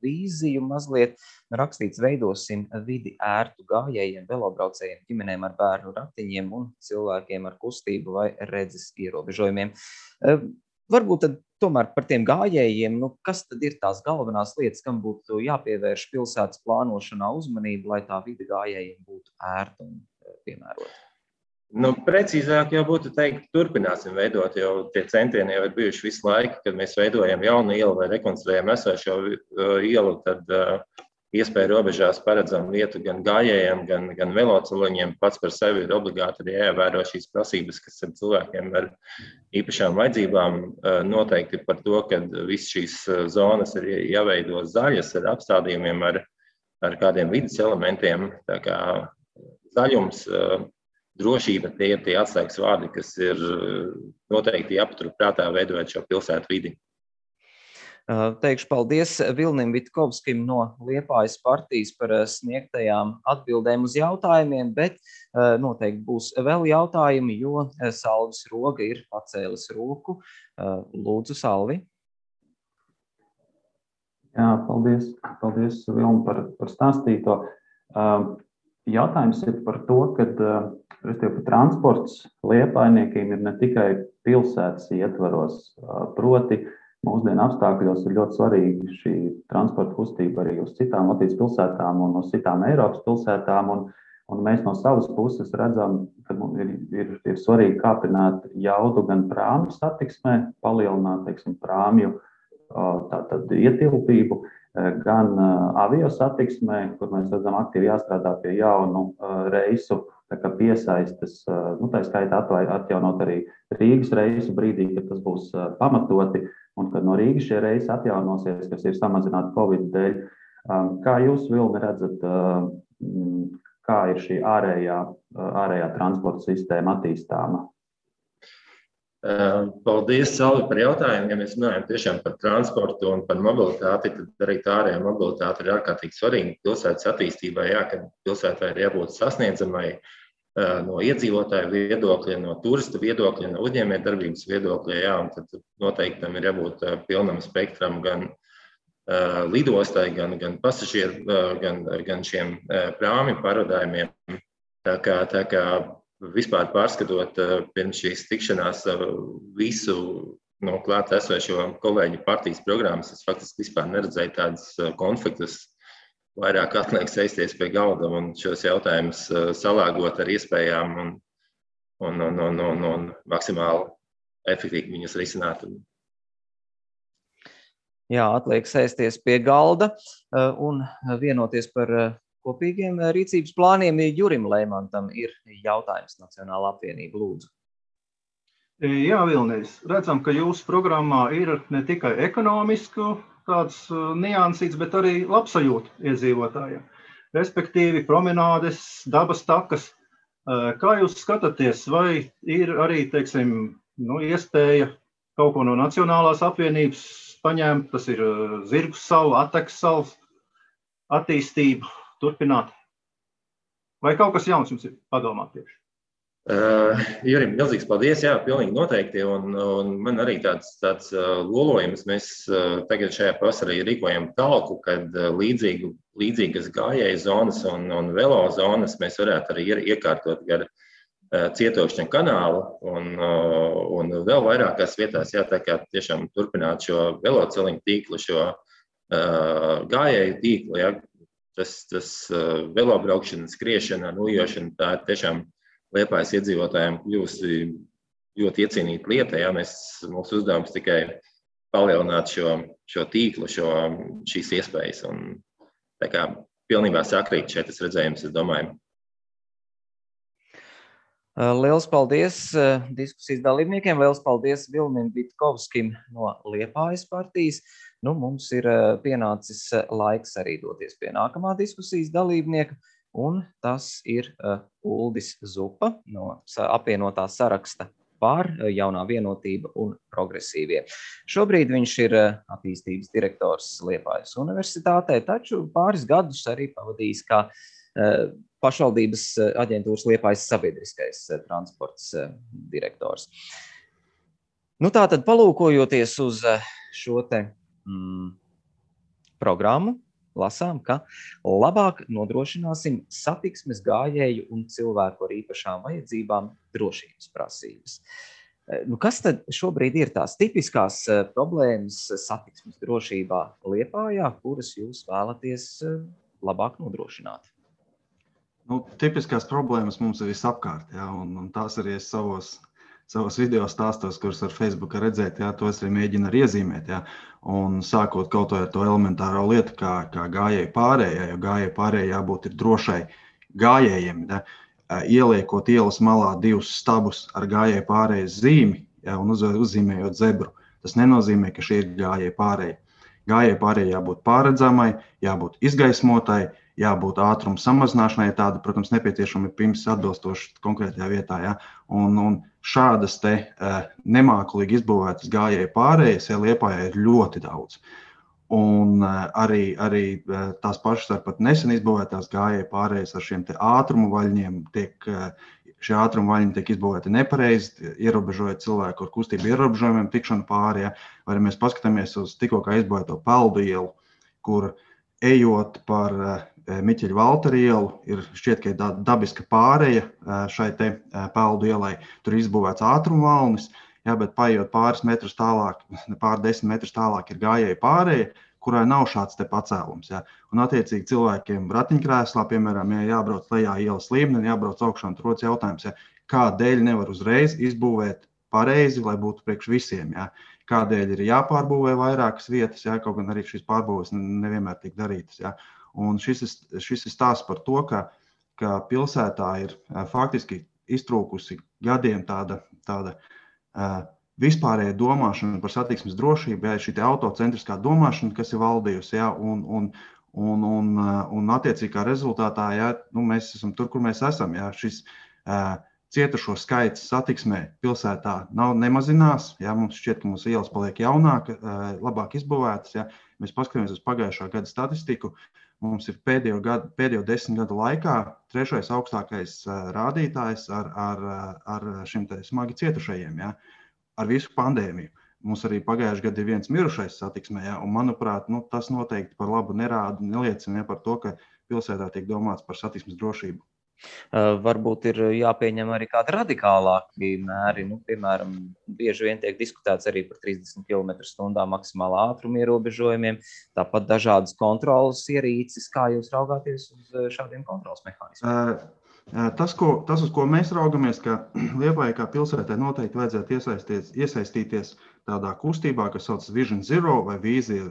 vīziju mazliet. Rakstīts, veidosim vidi ērtu gājējiem, velobraucējiem, ģimenēm ar bērnu ratiņiem un cilvēkiem ar kustību vai redzes ierobežojumiem. Varbūt tad tomēr par tiem gājējiem, kas tad ir tās galvenās lietas, kam būtu jāpievērš pilsētas plānošanā uzmanība, lai tā vide gājējiem būtu ērta un piemērota? Precīzāk jau būtu teikt, turpināsim veidot, jo tie centieni jau ir bijuši visu laiku, kad mēs veidojam jaunu ielu vai rekonstruējam esošo ielu, tad iespēja robežās paredzam vietu gan gājējiem, gan veloceliņiem. Pats par sevi ir obligāti arī jāievēro šīs prasības, kas ir cilvēkiem ar īpašām vajadzībām. Noteikti par to, ka visas šīs zonas ir jāveido zaļas ar apstādījumiem, ar kādiem vidas elementiem. Tā kā zaļums, drošība, tie ir tie atslēgas vārdi, kas ir noteikti jāpatur prātā veidojot šo pilsētu vidi. Teikšu paldies Vilnim Vitkovskim no Liepājas partijas par sniegtajām atbildēm uz jautājumiem, bet noteikti būs vēl jautājumi, jo Salvis Roga ir pacēlis roku. Lūdzu, Salvi. Jā, paldies Vilni par stāstīto. Jautājums ir par to, ka transports Liepājniekiem ir ne tikai pilsētas ietvaros, proti mūsdienu apstākļos ir ļoti svarīga šī transporta kustība arī uz citām Latvijas pilsētām un uz citām Eiropas pilsētām. Un mēs no savas puses redzam, ka ir svarīgi kāpināt jaudu gan prāmju satiksmē, palielināt, prāmju ietilpību, gan avio satiksmē, kur mēs redzam aktīvi jāstrādā pie jaunu reisu piesaistes, tā skaitā atjaunot arī Rīgas reisu brīdī, kad tas būs pamatoti, un kad no Rīgas šie reisi atjaunosies, kas ir samazināti Covid dēļ. Kā jūs, Vilni, redzat, kā ir šī ārējā transporta sistēma attīstāma? Paldies, Salvi, par jautājumu. Ja mēs runājam tiešām par transportu un par mobilitāti, tad arī tā ārējā mobilitāte ir ārkārtīgi svarīga pilsētas attīstībai, kad pilsētai ir jābūt sasniedzamai no iedzīvotāju viedokļa, no turista viedokļa, no uzņēmējdarbības viedokļa, un tad noteikti tam ir jābūt pilnam spektram gan lidostai, gan pasažieru, gan šiem prāmju pārvadājumiem. Tā kā vispār pārskatot pirms šīs tikšanās visu no klāt esošo kolēģu partijas programmas, es faktiski vispār neredzēju tādas konfliktus. Vairāk atliek sēsties pie galda un šos jautājumus salāgot ar iespējām un maksimāli efektīvi viņus risināt. Jā, atliek sēsties pie galda un vienoties par kopīgiem rīcības plāniem. Jurim Leimantam ir jautājums Nacionālā apvienība, lūdzu. Jā, Vilnis, redzam, ka jūsu programmā ir ne tikai ekonomisku tāds niansīts, bet arī labsajūta iedzīvotājiem. Respektīvi promenādes, dabas takas. Kā jūs skatāties, vai ir arī, teiksim, iespēja kaut ko no Nacionālās apvienības paņemt, tas ir Zirgu salu, Atekas salas attīstību turpināt? Vai kaut kas jauns jums ir padomāt tieši? Jurim, milzīgs paldies, jā, pilnīgi noteikti, un man arī tāds lolojums. Mēs tagad šajā pavasarī rīkojam talku, kad līdzīgas gājēju zonas un velo zonas mēs varētu arī iekārtot gar Cietokšņa kanālu un vēl vairākās vietās, jā, tā kā tiešām turpināt šo veloceliņu tīklu, šo gājēju tīklu, jā, tas velobraukšana, skriešana, nojošana, tā ir tiešām Liepājas iedzīvotājiem kļūsi ļoti iecienīta lieta. Ja? Mūsu uzdevums tikai palielināt šo tīklu, šīs iespējas. Un, tā kā pilnībā sakrīt šeit tas redzējums, es domāju. Liels paldies diskusijas dalībniekiem, liels paldies Vilnim Vitkovskim no Liepājas partijas. Mums ir pienācis laiks arī doties pie nākamā diskusijas dalībnieka. Un tas ir Uldis Zupa no apvienotā saraksta par jaunā vienotība un progresīvie. Šobrīd viņš ir attīstības direktors Liepājas universitātē, taču pāris gadus arī pavadījis kā pašvaldības aģentūras Liepājas sabiedriskais transports direktors. Tātad palūkojoties uz šo te programmu, lasām, ka labāk nodrošināsim satiksmes gājēju un cilvēku ar īpašām vajadzībām drošības prasības. Kas tad šobrīd ir tās tipiskās problēmas satiksmes drošībā Liepājā, kuras jūs vēlaties labāk nodrošināt? Tipiskās problēmas mums ir visapkārt, jā, un tās arī es savos video stāstos, kurus ar Facebooku redzēt, jā, tos arī mēģina arī iezīmēt, jā. Un sākot kaut ar to elementāro lietu, kā gājēju pārējai, jo gājēju pārējai jābūt ir drošai gājējiem, jā. Ieliekot ielas malā 2 stabus ar gājēju pārējas zīmi, jā, un uzzīmējot zebru, tas nenozīmē, ka šī ir gājēju pārēja. Gājēju pārējai jābūt pārredzamai, jābūt izgaismotai, jābūt ātruma samazināšanai, tāda, protams, nepieciešama pirms atbilstoši konkrētajā vietā. Ja? Un šādas te nemākulīgi izbūvētas gājēju pārējas Liepājā ir ļoti daudz. Un arī tās pašas ar pat nesen izbūvētās gājēju pārējas ar šiem te ātrumu vaļņiem šie ātrumu vaļņi tiek izbūvēti nepareizi, ierobežojot cilvēku ar kustību ierobežojumiem tikšanu pāri. Ja? Vai mēs paskatāmies uz tikko kā izbūvēto Peldu ielu, kur ejot par Miķeļa Valtera ielu, šķiet, ka ir dabiska pāreja šai te Peldu ielai. Tur izbūvēts ātrumvalnis, jā, bet paiet pāris metrus tālāk, pār 10 metrus tālāk ir gājēja pāreja, kurai nav šāds te pacēlums. Jā. Un attiecīgi cilvēkiem ratiņkrēslā, piemēram, ja jābrauc lejā ielas līmenī, jābrauc augšā un rodas jautājums, jā, kādēļ nevar uzreiz izbūvēt pareizi, lai būtu priekš visiem. Jā. Kādēļ ir jāpārbūvē vairākas vietas, jā, kaut gan arī šīs pārbūves nevienmēr tiek darītas. Jā. Un šis ir stāsts par to, ka pilsētā ir faktiski iztrūkusi gadiem tāda vispārēja domāšana par satiksmes drošību, jā, šī autocentriskā domāšana, kas ir valdījusi, jā, un attiecīgi kā rezultātā, jā, mēs esam tur, kur mēs esam, jā, šis cietušo skaits satiksmē pilsētā nemazinās, jā, mums šķiet, ka mūsu ielas paliek labāk izbūvētas, jā, mēs paskatāmies uz pagājušā gada statistiku, mums ir pēdējo 10 gadu laikā 3. augstākais rādītājs ar šim te smagi cietušajiem, jā, ar visu pandēmiju. Mums arī pagājušajā gadā ir viens mirušais satiksmē, jā, un manuprāt, tas noteikti par labu neliecina par to, ka pilsētā tiek domāts par satiksmes drošību. Varbūt ir jāpieņem arī kādi radikālāki mēri. Piemēram, bieži vien tiek diskutēts arī par 30 km/h maksimālā ātruma ierobežojumiem, tāpat dažādas kontrolas ierīces. Kā jūs raugāties uz šādiem kontrolas mehānismiem? Tas, uz ko mēs raugamies, ka Liepājai kā pilsētai noteikti vajadzētu iesaistīties tādā kustībā, kas sauc Vision Zero vai Vīzija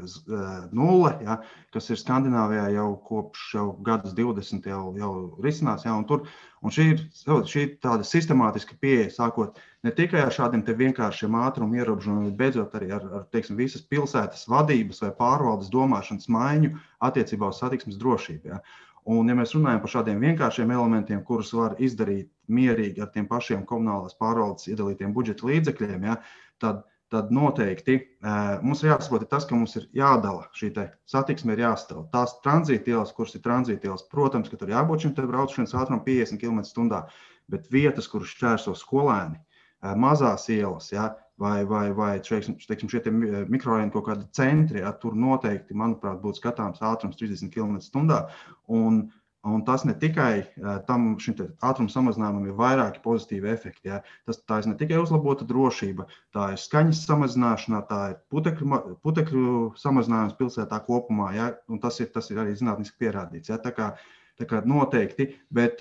0, ja, kas ir Skandināvijā jau kopš gadus 20 jau risinās. Ja, un šī ir tāda sistemātiska pieeja, sākot ne tikai ar šādiem te vienkāršiem ātrumu ierobežojumiem, bet beidzot arī ar teiksim, visas pilsētas vadības vai pārvaldes domāšanas maiņu attiecībā uz satiksmes drošību. Ja. Un, ja mēs runājam par šādiem vienkāršiem elementiem, kurus var izdarīt mierīgi ar tiem pašiem komunālās pārvaldes iedalītiem budžeta līdzekļiem, ja, tad noteikti mums ir jāsaprot tas, ka mums ir jādala šī satiksme ir jāstāv. Tās tranzītielas, kuras ir tranzītielas, protams, ka tur jābūt šim brauciens ātrumam 50 km/h, bet vietas, kuras šķērso skolēni, mazās ielas, ja, vai teiksim, šie mikrorajoni kaut kādi centri, ja, tur noteikti, manuprāt, būtu skatāms ātrums 30 km/h. Un tas ne tikai šim ātruma samazinājumam ir vairāki pozitīvi efekti. Ja. Tā ir ne tikai uzlabota drošība, tā ir skaņas samazināšana, tā ir putekļu samazinājums pilsētā kopumā, ja, un tas ir arī zinātniski pierādīts. Ja. Tā kā noteikti, bet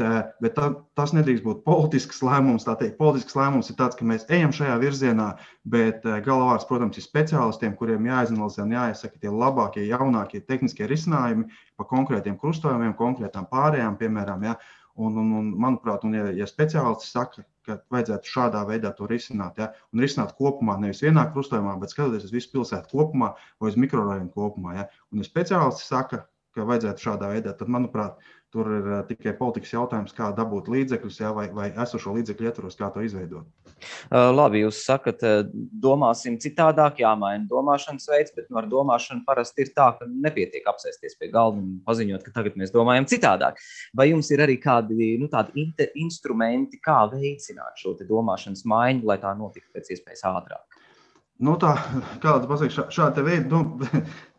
tas nedrīkst būt politisks lēmums. Tā teikt, politisks lēmums ir tāds, ka mēs ejam šajā virzienā, bet galvārds, protams, ir speciālistiem, kuriem jāizanalizē un jāiesaka tie labākie, jaunākie tehniskie risinājumi pa konkrētiem krustojumiem, konkrētām pārējām, piemēram. Ja. Un manuprāt, ja speciālisti saka, ka vajadzētu šādā veidā to risināt, ja, un risināt kopumā, nevis vienā krustojumā, bet skatoties uz visu pilsētu kopumā vai uz mikrorajonu kopumā. Ja. Un ja speciālisti saka, ka vajadzētu šādā veidā, tad, manuprāt, tur ir tikai politikas jautājums, kā dabūt līdzekļus, ja, vai esošo līdzekļu ietvaros, kā to izveidot. Labi, jūs sakat, domāsim citādāk, jāmaina domāšanas veids, bet ar domāšanu parasti ir tā, ka nepietiek apsēsties pie galda un paziņot, ka tagad mēs domājam citādāk. Vai jums ir arī kādi tādi instrumenti, kā veicināt šo domāšanas maiņu, lai tā notiktu pēc iespējas ātrāk? Kāda pasaka, šāda veida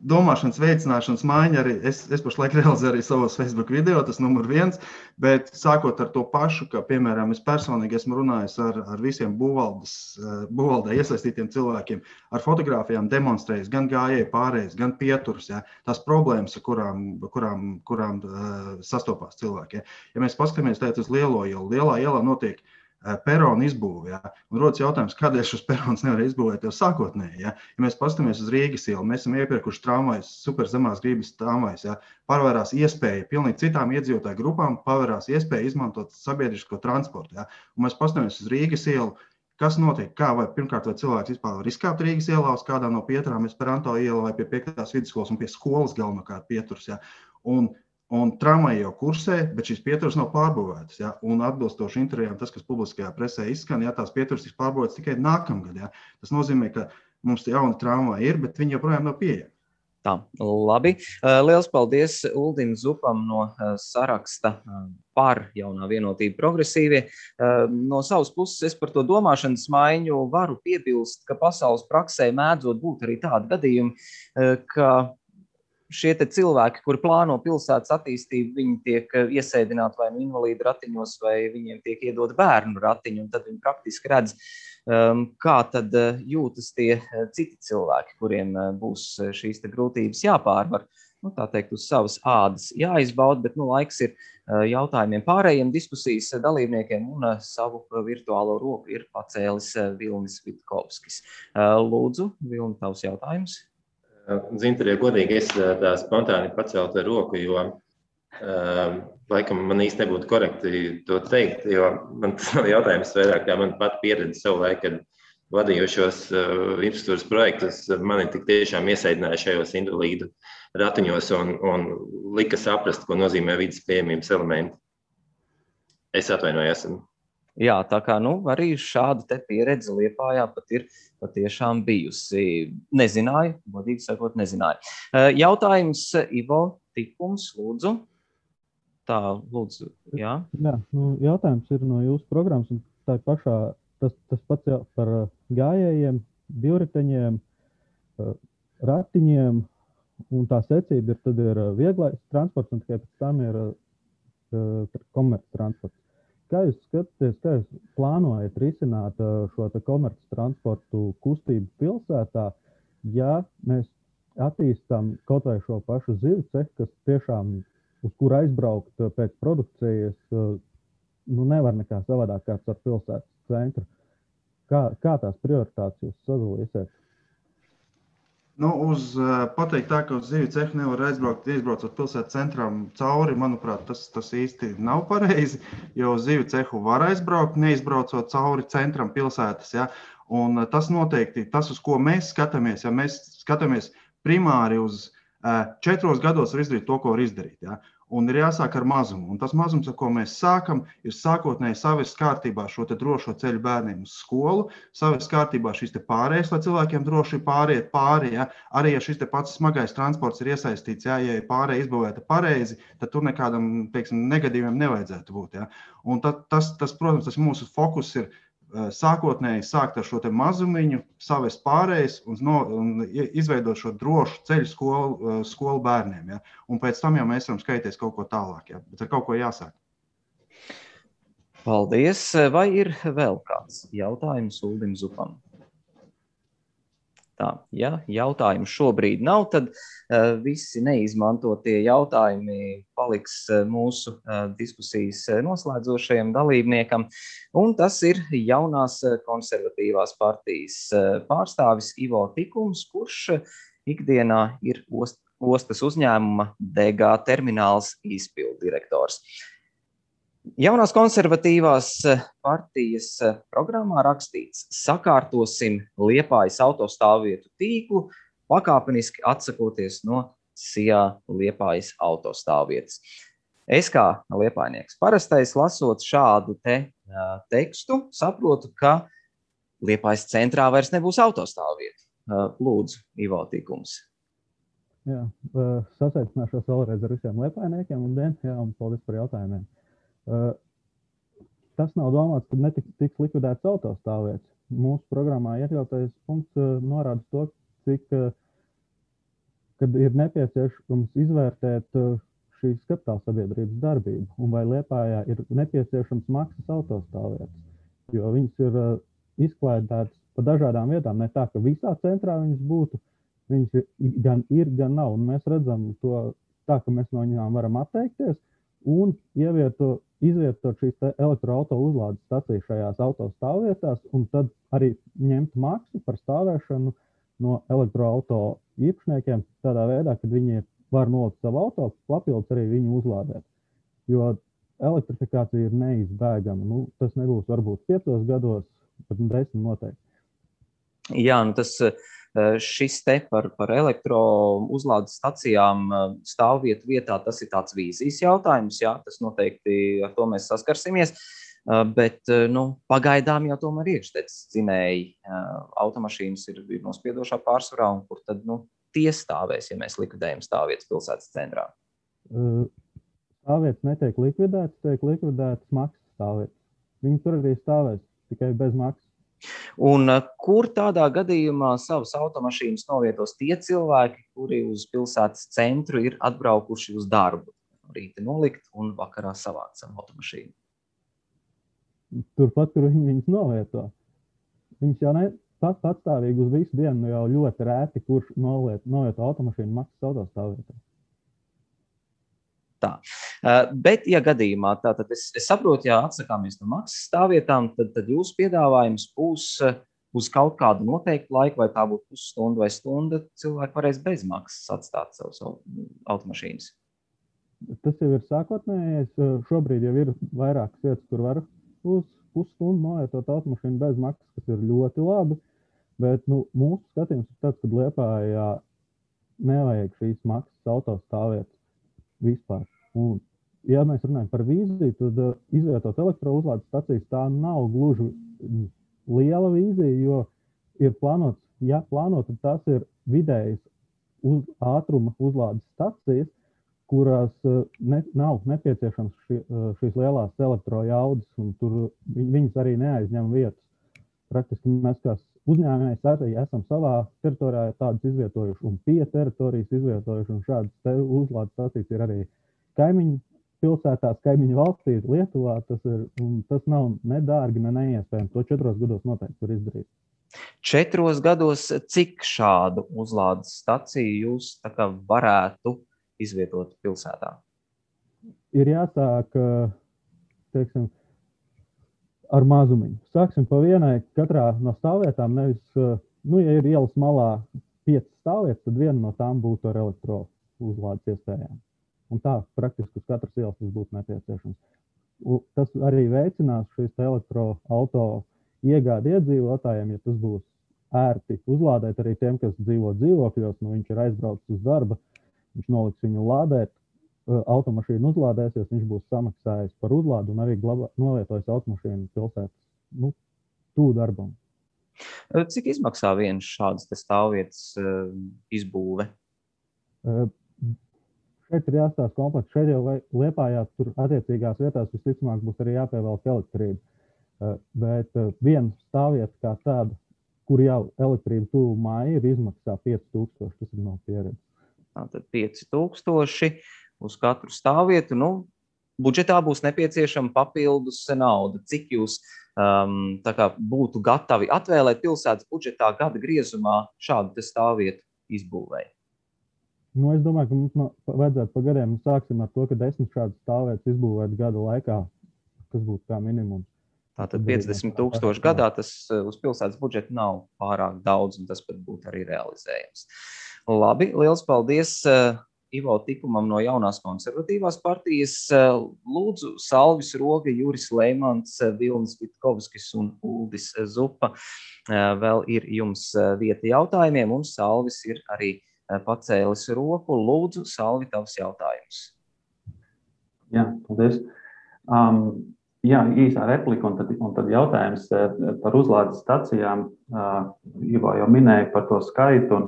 domāšanas veicināšanas maiņa arī, es pašlaik realizēju arī savos Facebook video, tas numur 1, bet sākot ar to pašu, ka, piemēram, es personīgi esmu runājis ar visiem būvvaldē iesaistītiem cilvēkiem, ar fotogrāfijām demonstrējis, gan gājēju pārējais, gan pieturus, ja, tās problēmas, kurām sastopās cilvēki. Ja mēs paskatāmies uz lielo ielu, lielā ielā notiek peronu izbūve, ja, un rodas jautājums, kādēļ šos peronus nevar izbūvēt jau sākotnēji. Ja. Ja mēs paskatāmies uz Rīgas ielu, mēs esam iepirkuši tramvajus, super zemās gribas tramvajus, ja, parvērās iespēja pilnīgi citām iedzīvotāju grupām, parvērās iespēja izmantot sabiedrisko transportu. Ja. Un mēs paskatāmies uz Rīgas ielu, kas notiek, pirmkārt, vai cilvēks vispār var izkāpt Rīgas ielā uz kādā no pieturām, Esperanto iela vai pie 5. vidusskolas un pie skolas galvenokārt pieturs. Ja. Un tramvaji jau kursē, bet šīs pieturas nav pārbūvētas. Ja? Un atbilstoši intervijām, tas, kas publiskajā presē izskan, ja, tās pieturas tiks pārbūvētas tikai nākamgad. Ja? Tas nozīmē, ka mums jauni tramvaji ir, bet viņi joprojām nav pieejami. Tā, labi. Liels paldies Uldim Zupam no saraksta par jaunā vienotība progresīvie. No savas puses es par to domāšanas maiņu varu piebilst, ka pasaules praksē mēdzot būt arī tādi gadījumi, ka šie cilvēki, kuri plāno pilsētas attīstību, viņi tiek iesēdināti vai nu invalīdu ratiņos, vai viņiem tiek iedot bērnu ratiņu, un tad viņi praktiski redz, kā tad jūtas tie citi cilvēki, kuriem būs šīs grūtības jāpārvar. Tā teikt, uz savas ādas jāizbauda, bet laiks ir jautājumiem pārējiem diskusijas dalībniekiem, un savu virtuālo roku ir pacēlis Vilnis Vitkovskis. Lūdzu, Vilni, tavs jautājums. Zinter, ja godīgi, es tā spontāni pacēlu roku, jo laikam man īsti nebūtu korekti to teikt, jo man tas nav jautājums vairāk, kā man pat pieredze savu laiku, kad vadījušos infrastruktūras projektus, mani tik tiešām iesaidināja šajos invalīdu ratiņos un lika saprast, ko nozīmē vidas pieejamības elementi. Es atvainojos. Jā, tā kā arī šāda pieredze Liepājā pat ir patiešām bijusi. Nezināju, godīgi sakot, nezināju. Jautājums Ivo Tikums, lūdzu. Tā, lūdzu, jā. Jā, jautājums ir no jūsu programmas, un tā pašā, tas pats par gājējiem, divriteņiem, ratiņiem, un tā secība tad ir vieglais transports, un tikai pēc tam ir komerc transports. Kā jūs skatāties, kā jūs plānojat risināt šo komerc transportu kustību pilsētā, ja mēs attīstam kaut vai šo pašu zivju cehu, kas tiešām uz kur aizbraukt pēc produkcijas, nevar nekā savādāk kāds ar pilsētas centru. Kā tās prioritātes jūs sadalīsiet? Pateikt tā, ka uz zivju cehu nevar izbraucot pilsētas centram cauri, manuprāt, tas īsti nav pareizi, jo uz zivju cehu var aizbraukt, neizbraucot cauri centram pilsētas. Ja? Un tas noteikti, tas, uz ko mēs skatāmies, ja mēs skatāmies primāri uz 4 gados var izdarīt to, ko var izdarīt. Ja? Un ir jāsāk ar mazumu. Un tas mazums, ar ko mēs sākam, ir sākotnēji savest kārtībā šo te drošo ceļu bērniem uz skolu, savest kārtībā šīs te pārējas, lai cilvēkiem droši pāriet pāri. Ja? Arī, ja šis te pats smagais transports ir iesaistīts, ja ir pārēja izbūvēta pareizi, tad tur nekādam, teiksim, negadījumiem nevajadzētu būt. Ja? Un tas, protams, tas mūsu fokus ir sākotnēji sākt ar šo te mazumiņu, savest pārējais un izveidot šo drošu ceļu skolu bērniem. Ja? Un pēc tam jau mēs varam skaities kaut ko tālāk, ja? Bet ar kaut ko jāsāk. Paldies. Vai ir vēl kāds jautājums Uldim Zupam? Tā, ja jautājumu šobrīd nav, tad visi neizmantotie jautājumi paliks mūsu diskusijas noslēdzošajam dalībniekam. Un tas ir jaunās konservatīvās partijas pārstāvis Ivo Tikums, kurš ikdienā ir ostas uzņēmuma DG termināls izpilddirektors. Jaunās konservatīvās partijas programmā rakstīts: sakārtosim Liepājas autostāvvietu tīklu, pakāpeniski atsakoties no SIA Liepājas autostāvvietas. Es kā liepājnieks parastais lasot šādu tekstu, saprotu, ka Liepājas centrā vairs nebūs autostāvvieta. Lūdzu, Ivo Tikums. Jā, sasveicināšos vēlreiz ar visiem liepājniekiem un paldies par jautājumiem. Tas nav domāts, ka netiks likvidēts autostāvvietas. Mūsu programmā iekļautais punkts norāda to, kad ir nepieciešams izvērtēt šīs kapitāla sabiedrības darbību un vai Liepājā ir nepieciešams maksas autostāvvietas, jo viņas ir izklaidētas pa dažādām vietām, ne tā, ka visā centrā viņas būtu, viņas gan ir, gan nav, un mēs redzam to tā, ka mēs no viņām varam atteikties un izvietot šīs elektroauto uzlādes stacijas šajās autostāvvietās un tad arī ņemt maksu par stāvēšanu no elektroauto īpašniekiem tādā veidā, kad viņi var nolikt savu auto, papildus arī viņu uzlādēt. Jo elektrifikācija ir neizbēgama. Tas nebūs varbūt 5 gados, bet 10 noteikti. Jā, šis te par elektro uzlādes stacijām stāvvietu vietā, tas ir tāds vīzijas jautājums, jā, tas noteikti ar to mēs saskarsimies, bet pagaidām jau tomēr iekšteces dzinēji automašīnas ir nospiedošā pārsvarā, un kur tad tie stāvēs, ja mēs likvidējam stāvvietas pilsētas centrā? Stāvvietas netiek likvidētas, tiek likvidētas maksas stāvvietas. Viņi tur arī stāvēs, tikai bez maksas. Un kur tādā gadījumā savas automašīnas novietos tie cilvēki, kuri uz pilsētas centru ir atbraukuši uz darbu? Rīti nolikt un vakarā savākt savu automašīnu. Turpat, kur viņi viņas novieto. Viņas jau patstāvīgi uz visu dienu jau ļoti rēti, kurš novieto automašīnu maksas autostāvvietā. Tā. Bet, ja gadījumā, tātad es saprotu, ja atsakāmies no maksas stāvvietām, tad jūsu piedāvājums būs uz kaut kādu noteiktu laiku, vai tā būtu pusstunda vai stunda, cilvēki varēs bez maksas atstāt savus automašīnas. Tas jau ir sākotnējais. Šobrīd jau ir vairākas vietas, kur var uz pusstundu novietot automašīnu bez maksas, kas ir ļoti labi. Bet mūsu skatījums ir tāds, ka Liepājā nevajag šīs maksas autostāvvietas vispār. Un, ja mēs runājam par vīziju, tad izvietot elektrouzlādes stacijas tā nav gluži liela vīzija, jo ir plānots, ja plānot, tad tas ir vidējas ātruma uzlādes stacijas, kurās nav nepieciešams šīs lielās elektrojaudas, un tur viņas arī neaizņem vietas. Praktiski mēs kā uzņēmējs arī esam savā teritorijā tādas izvietojuši un pie teritorijas izvietojuši, un šādas uzlādes stacijas ir arī kaimiņu pilsētās, kaimiņu valstīs, Lietuvā. Tas nav ne dārgi, ne neiespējami. To 4 gados noteikti var izdarīt. 4 gados cik šādu uzlādes staciju jūs varētu izvietot pilsētā? Ir jāsāk, teiksim, ar mazumiņu. Sāksim pa vienai katrā no stāvvietām, nevis, ja ir ielas malā 5 stāvvietas, tad viena no tām būtu ar elektro uzlādes iespējām. Un tā praktiski uz katras ielas tas būtu nepieciešams. Tas arī veicinās šīs elektroauto iegādi iedzīvotājiem, ja tas būs ērti uzlādēt arī tiem, kas dzīvo dzīvokļos, viņš ir aizbraucis uz darba, viņš noliks viņu lādēt, automašīna uzlādēsies, viņš būs samaksājis par uzlādu un arī novietojis automašīnu pilsētas tuvu darbam. Cik izmaksā viens šāds stāvvietas izbūve? Šeit ir jāstāsta komplekts. Šeit jau Liepājā tur attiecīgās vietās visticamāk būs arī jāpievelk elektrība. Bet viena stāvvieta kā tāda, kur jau elektrība tuvu māja ir izmaksā 5000, tas ir no pieredzes. Tātad 5000 uz katru stāvvietu. Budžetā būs nepieciešama papildus nauda. Cik jūs tā kā būtu gatavi atvēlēt pilsētas budžetā gada griezumā šādu stāvvietu izbūvēju? Es domāju, ka mums vajadzētu pa gadiem. Sāksim ar to, ka 10 šādas stāvvietas izbūvēt gada laikā, kas būtu kā minimums. Tātad 50,000 gadā tas uz pilsētas budžetu nav pārāk daudz, un tas pat būtu arī realizējams. Labi, liels paldies Ivo Tikumam no Jaunās konservatīvās partijas. Lūdzu, Salvis Roga, Juris Leimants, Vilnis Vitkovskis un Uldis Zupa. Vēl ir jums vieta jautājumiem, un Salvis ir arī pacēlis roku. Lūdzu, Salvi, tavs jautājums. Jā, paldies. Jā, īsā replika un tad jautājums par uzlādes stacijām. Ivo jau minēja par to skaitu un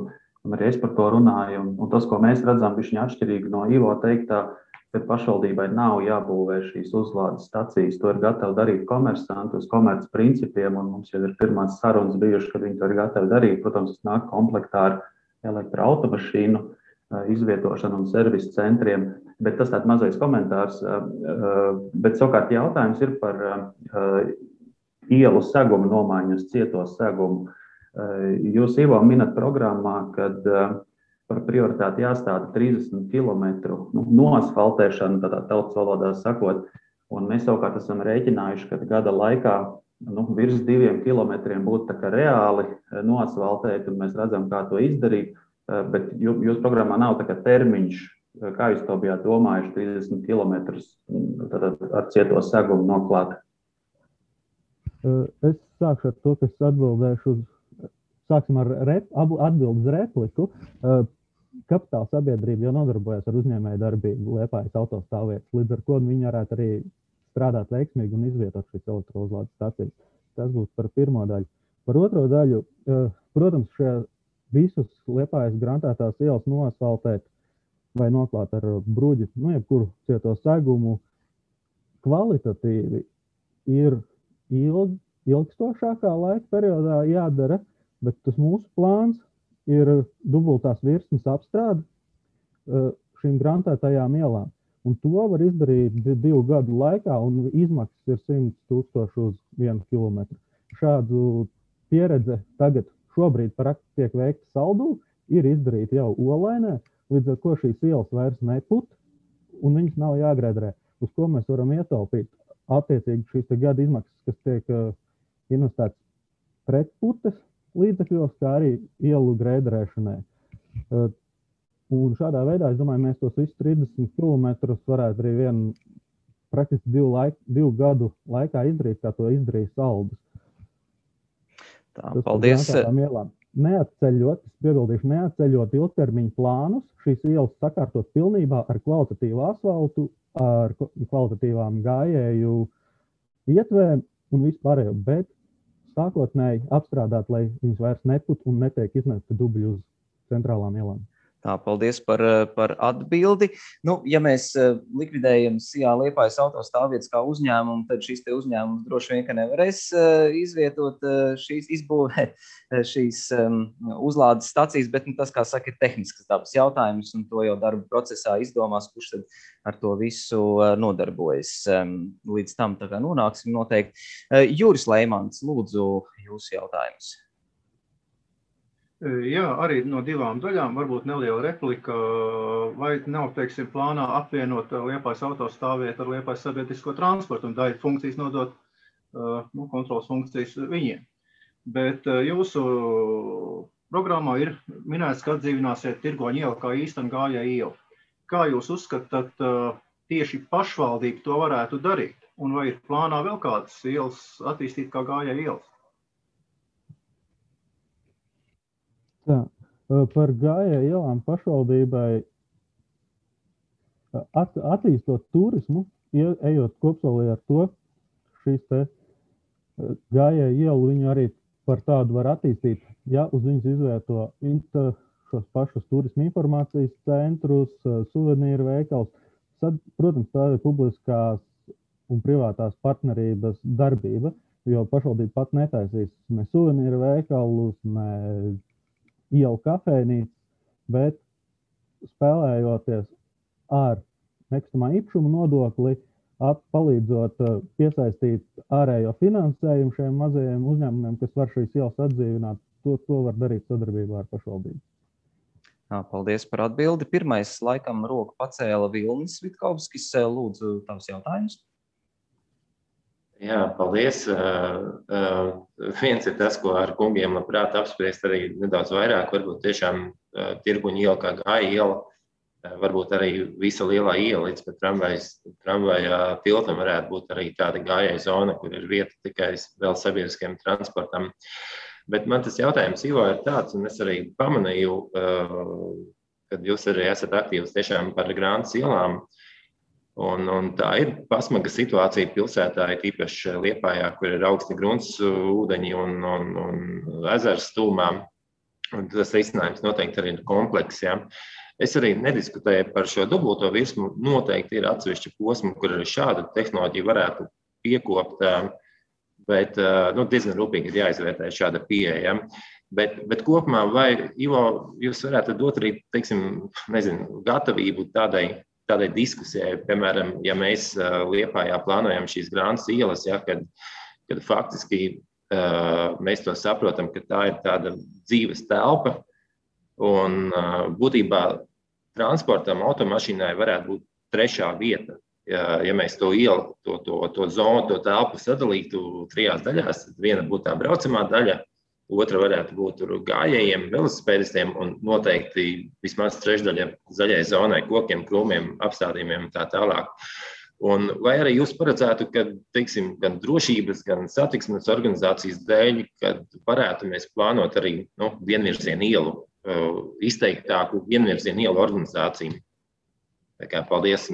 arī es par to runāju. Un tas, ko mēs redzam, ir atšķirīgi no Ivo teiktā, ka pašvaldībai nav jābūvē šīs uzlādes stacijas. To ir gatavi darīt komersanti uz komerc principiem, un mums jau ir pirmās sarunas bijušas, kad viņi to ir gatavi darīt. Protams, tas nāk komplektā ar elektroautomašīnu izvietošanu un servisu centriem, bet tas tāds mazais komentārs. Bet savukārt jautājums ir par ielu segumu nomaiņu uz cieto segumu. Jūs, Ivo, minat programmā, kad par prioritāti jāstāda 30 km noasfaltēšanu, tādā tautas valodā sakot, un mēs savukārt esam rēķinājuši, ka gada laikā virs 2 kilometriem būtu tā kā reāli noasfaltēt, un mēs redzam, kā to izdarīt, bet jūsu programmā nav tā kā termiņš, kā jūs to bijāt domājuši 30 km ar cieto segumu noklāt? Es sākšu ar to, ka es atbildēšu sāksim ar atbildes repliku. Kapitāla sabiedrība jau nodarbojas ar uzņēmēju darbību Liepājas autostāvvietas, līdz ar ko viņi varētu arī strādāt veiksmīgi un izvietot šīs elektrouzlādes stacijas. Tas būs par pirmo daļu. Par otro daļu, protams, visus Liepājas grantētās ielas noasfaltēt vai noklāt ar bruģi, jebkuru cieto segumu kvalitatīvi ir ilgstošākā laika periodā jādara, bet tas mūsu plāns ir dubultās virsmas apstrāde šīm grantētajām ielām. Un to var izdarīt 2 gadu laikā, un izmaksas ir 100,000 uz 1 kilometru. Šādu pieredze tagad šobrīd tiek veikta Saldū, ir izdarīta jau Olainē, līdz ar ko šīs ielas vairs neput, un viņas nav jāgredrē, uz ko mēs varam ietaupīt. Attiecīgi šīs gada izmaksas, kas tiek investētas pretputes līdzekļos, kā arī ielu grēdrēšanai. Un šādā veidā, es domāju, mēs tos visus 30 km varētu arī praktiski 2 gadu laikā izdarīt, kā to izdarīja Saldus. Tā, paldies. Neatceļot ilgtermiņu plānus, šīs ielas sakārtot pilnībā ar kvalitatīvu asfaltu, ar kvalitatīvām gājēju ietvēm un vispārējo, bet sākotnēji apstrādāt, lai viņas vairs neput un netiek iznesta dubļi uz centrālām ielām. Tā, paldies par atbildi. Ja mēs likvidējam SIA Liepājas autostāvvietas kā uzņēmumu, tad šīs te uzņēmums droši vien, ka nevarēs izvietot izbūvēt šīs uzlādes stacijas, bet tas, kā saka, ir tehniskas dabas jautājums, un to jau darba procesā izdomās, kurš tad ar to visu nodarbojas. Līdz tam tā kā nonāksim noteikti. Juris Leimants, lūdzu, jūsu jautājums. Jā, arī no 2 daļām, varbūt neliela replika, vai nav, teiksim, plānā apvienot Liepājas autostāvvietu ar Liepājas sabiedrisko transportu un daļu funkcijas nodot, kontrolas funkcijas viņiem. Bet jūsu programmā ir minēts, ka atdzīvināsiet Tirgoņu ielu kā īstenu gājēju ielu. Kā jūs uzskatāt, tieši pašvaldība to varētu darīt? Un vai ir plānā vēl kādas ielas attīstīt kā gājēju ielas? Tā, par gājēju ielām pašvaldībai Attīstot turismu, ejot kopsolī ar to, šīs te gājēju ielu viņu arī par tādu var attīstīt, ja uz viņas izvieto šos pašus turismu informācijas centrus, suvenīru veikals. Tad, protams, tā ir publiskās un privātās partnerības darbība, jo pašvaldība pat netaisīs ne suvenīru veikalus, ne ielu kafejnīcas, bet spēlējoties ar nekustamā īpašuma nodokli, palīdzot piesaistīt ārējo finansējumu šiem mazajiem uzņēmumiem, kas var šīs ielas atdzīvināt, to var darīt sadarbībā ar pašvaldību. Paldies par atbildi. Pirmais, laikam, roku pacēla Vilnis Vitkovskis. Lūdzu, tavs jautājums. Jā, paldies. Viens ir tas, ko ar kungiem labprāt apspriest arī nedaudz vairāk, varbūt tiešām Tirguņa iela kā Gāja iela, varbūt arī visa lielā iela līdz pat tramvaja tiltam varētu būt arī tāda gājēja zona, kur ir vieta tikai vēl sabiedriskiem transportam. Bet man tas jautājums, Ivo, ir tāds, un es arī pamanīju, kad jūs arī esat aktīvs tiešām par Grāntas ielām, un tā ir pasmaga situācija pilsētā, īpaši Liepājā, kur ir augsti grunts ūdeņi un ezers stūmā, un tas risinājums noteikti arī ir komplekss, ja. Es arī nediskutēju par šo dubulto virsmu, noteikti ir atsevišķi posmi, kur arī šāda tehnoloģija varētu piekopt, bet diezgan rūpīgi ir jāizvērtē šāda pieeja. Bet kopumā, vai, Ivo, jūs varētu dot arī, teiksim, gatavību tādai diskusijai, piemēram, ja mēs Liepājā plānojam šīs Grāntas ielas, ja, kad faktiski mēs to saprotam, ka tā ir tāda dzīves telpa, un būtībā transportam, automašīnai varētu būt trešā vieta. Ja mēs to ielu, to zonu, to telpu sadalītu 3 daļās, tad viena būtu tā braucamā daļa, otra varētu būt gājējiem, velosipēdistiem un noteikti vismaz 3/3 zaļai zonai, kokiem, krūmiem, apstādījumiem un tā tālāk. Un vai arī jūs paredzētu, ka, teiksim, gan drošības, gan satiksmes organizācijas dēļ, kad varētu mēs plānot arī vienvirzienu ielu, izteiktāku vienvirzienu ielu organizāciju? Tā kā paldies.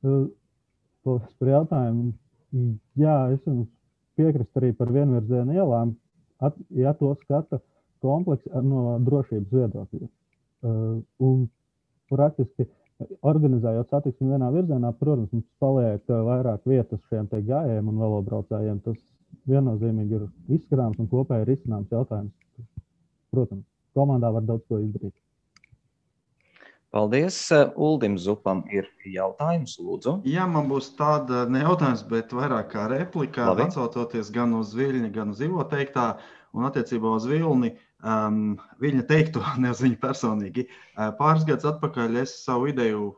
Paldies par jautājumu. Jā, es jums piekrist arī par vienvirzienu ielām, ja to skata kompleks no drošības viedokļa. Un praktiski organizējot satiksmi vienā virzienā, protams, mums paliek vairāk vietas šiem te gājējiem un velobraucējiem. Tas viennozīmīgi ir izskatāms un kopēji ir izcināms jautājums. Protams, komandā var daudz ko izdarīt. Paldies. Uldim Zupam ir jautājums, lūdzu. Jā, man būs tāda ne jautājums, bet vairāk kā replika, atsaucoties gan uz Viļņa, gan uz Ivo teiktā, un attiecībā uz Vilni, Viļņa teikto, ne uz viņu personīgi. Pāris gadus atpakaļ es savu ideju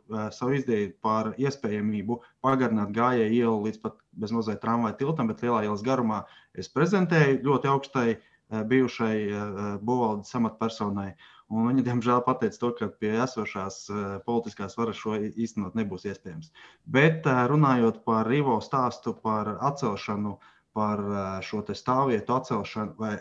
par iespējamību pagarināt gājēju ielu līdz pat bezmazliet tramvaja tiltam, bet lielā ielas garumā es prezentēju ļoti augstai bijušai būvvaldes amatpersonai. Un viņi, diemžēl, pateica to, ka pie esošās politiskās varas šo īstenot nebūs iespējams. Bet runājot par Ivo stāstu par atcelšanu, par šo te stāvvietu atcelšanu vai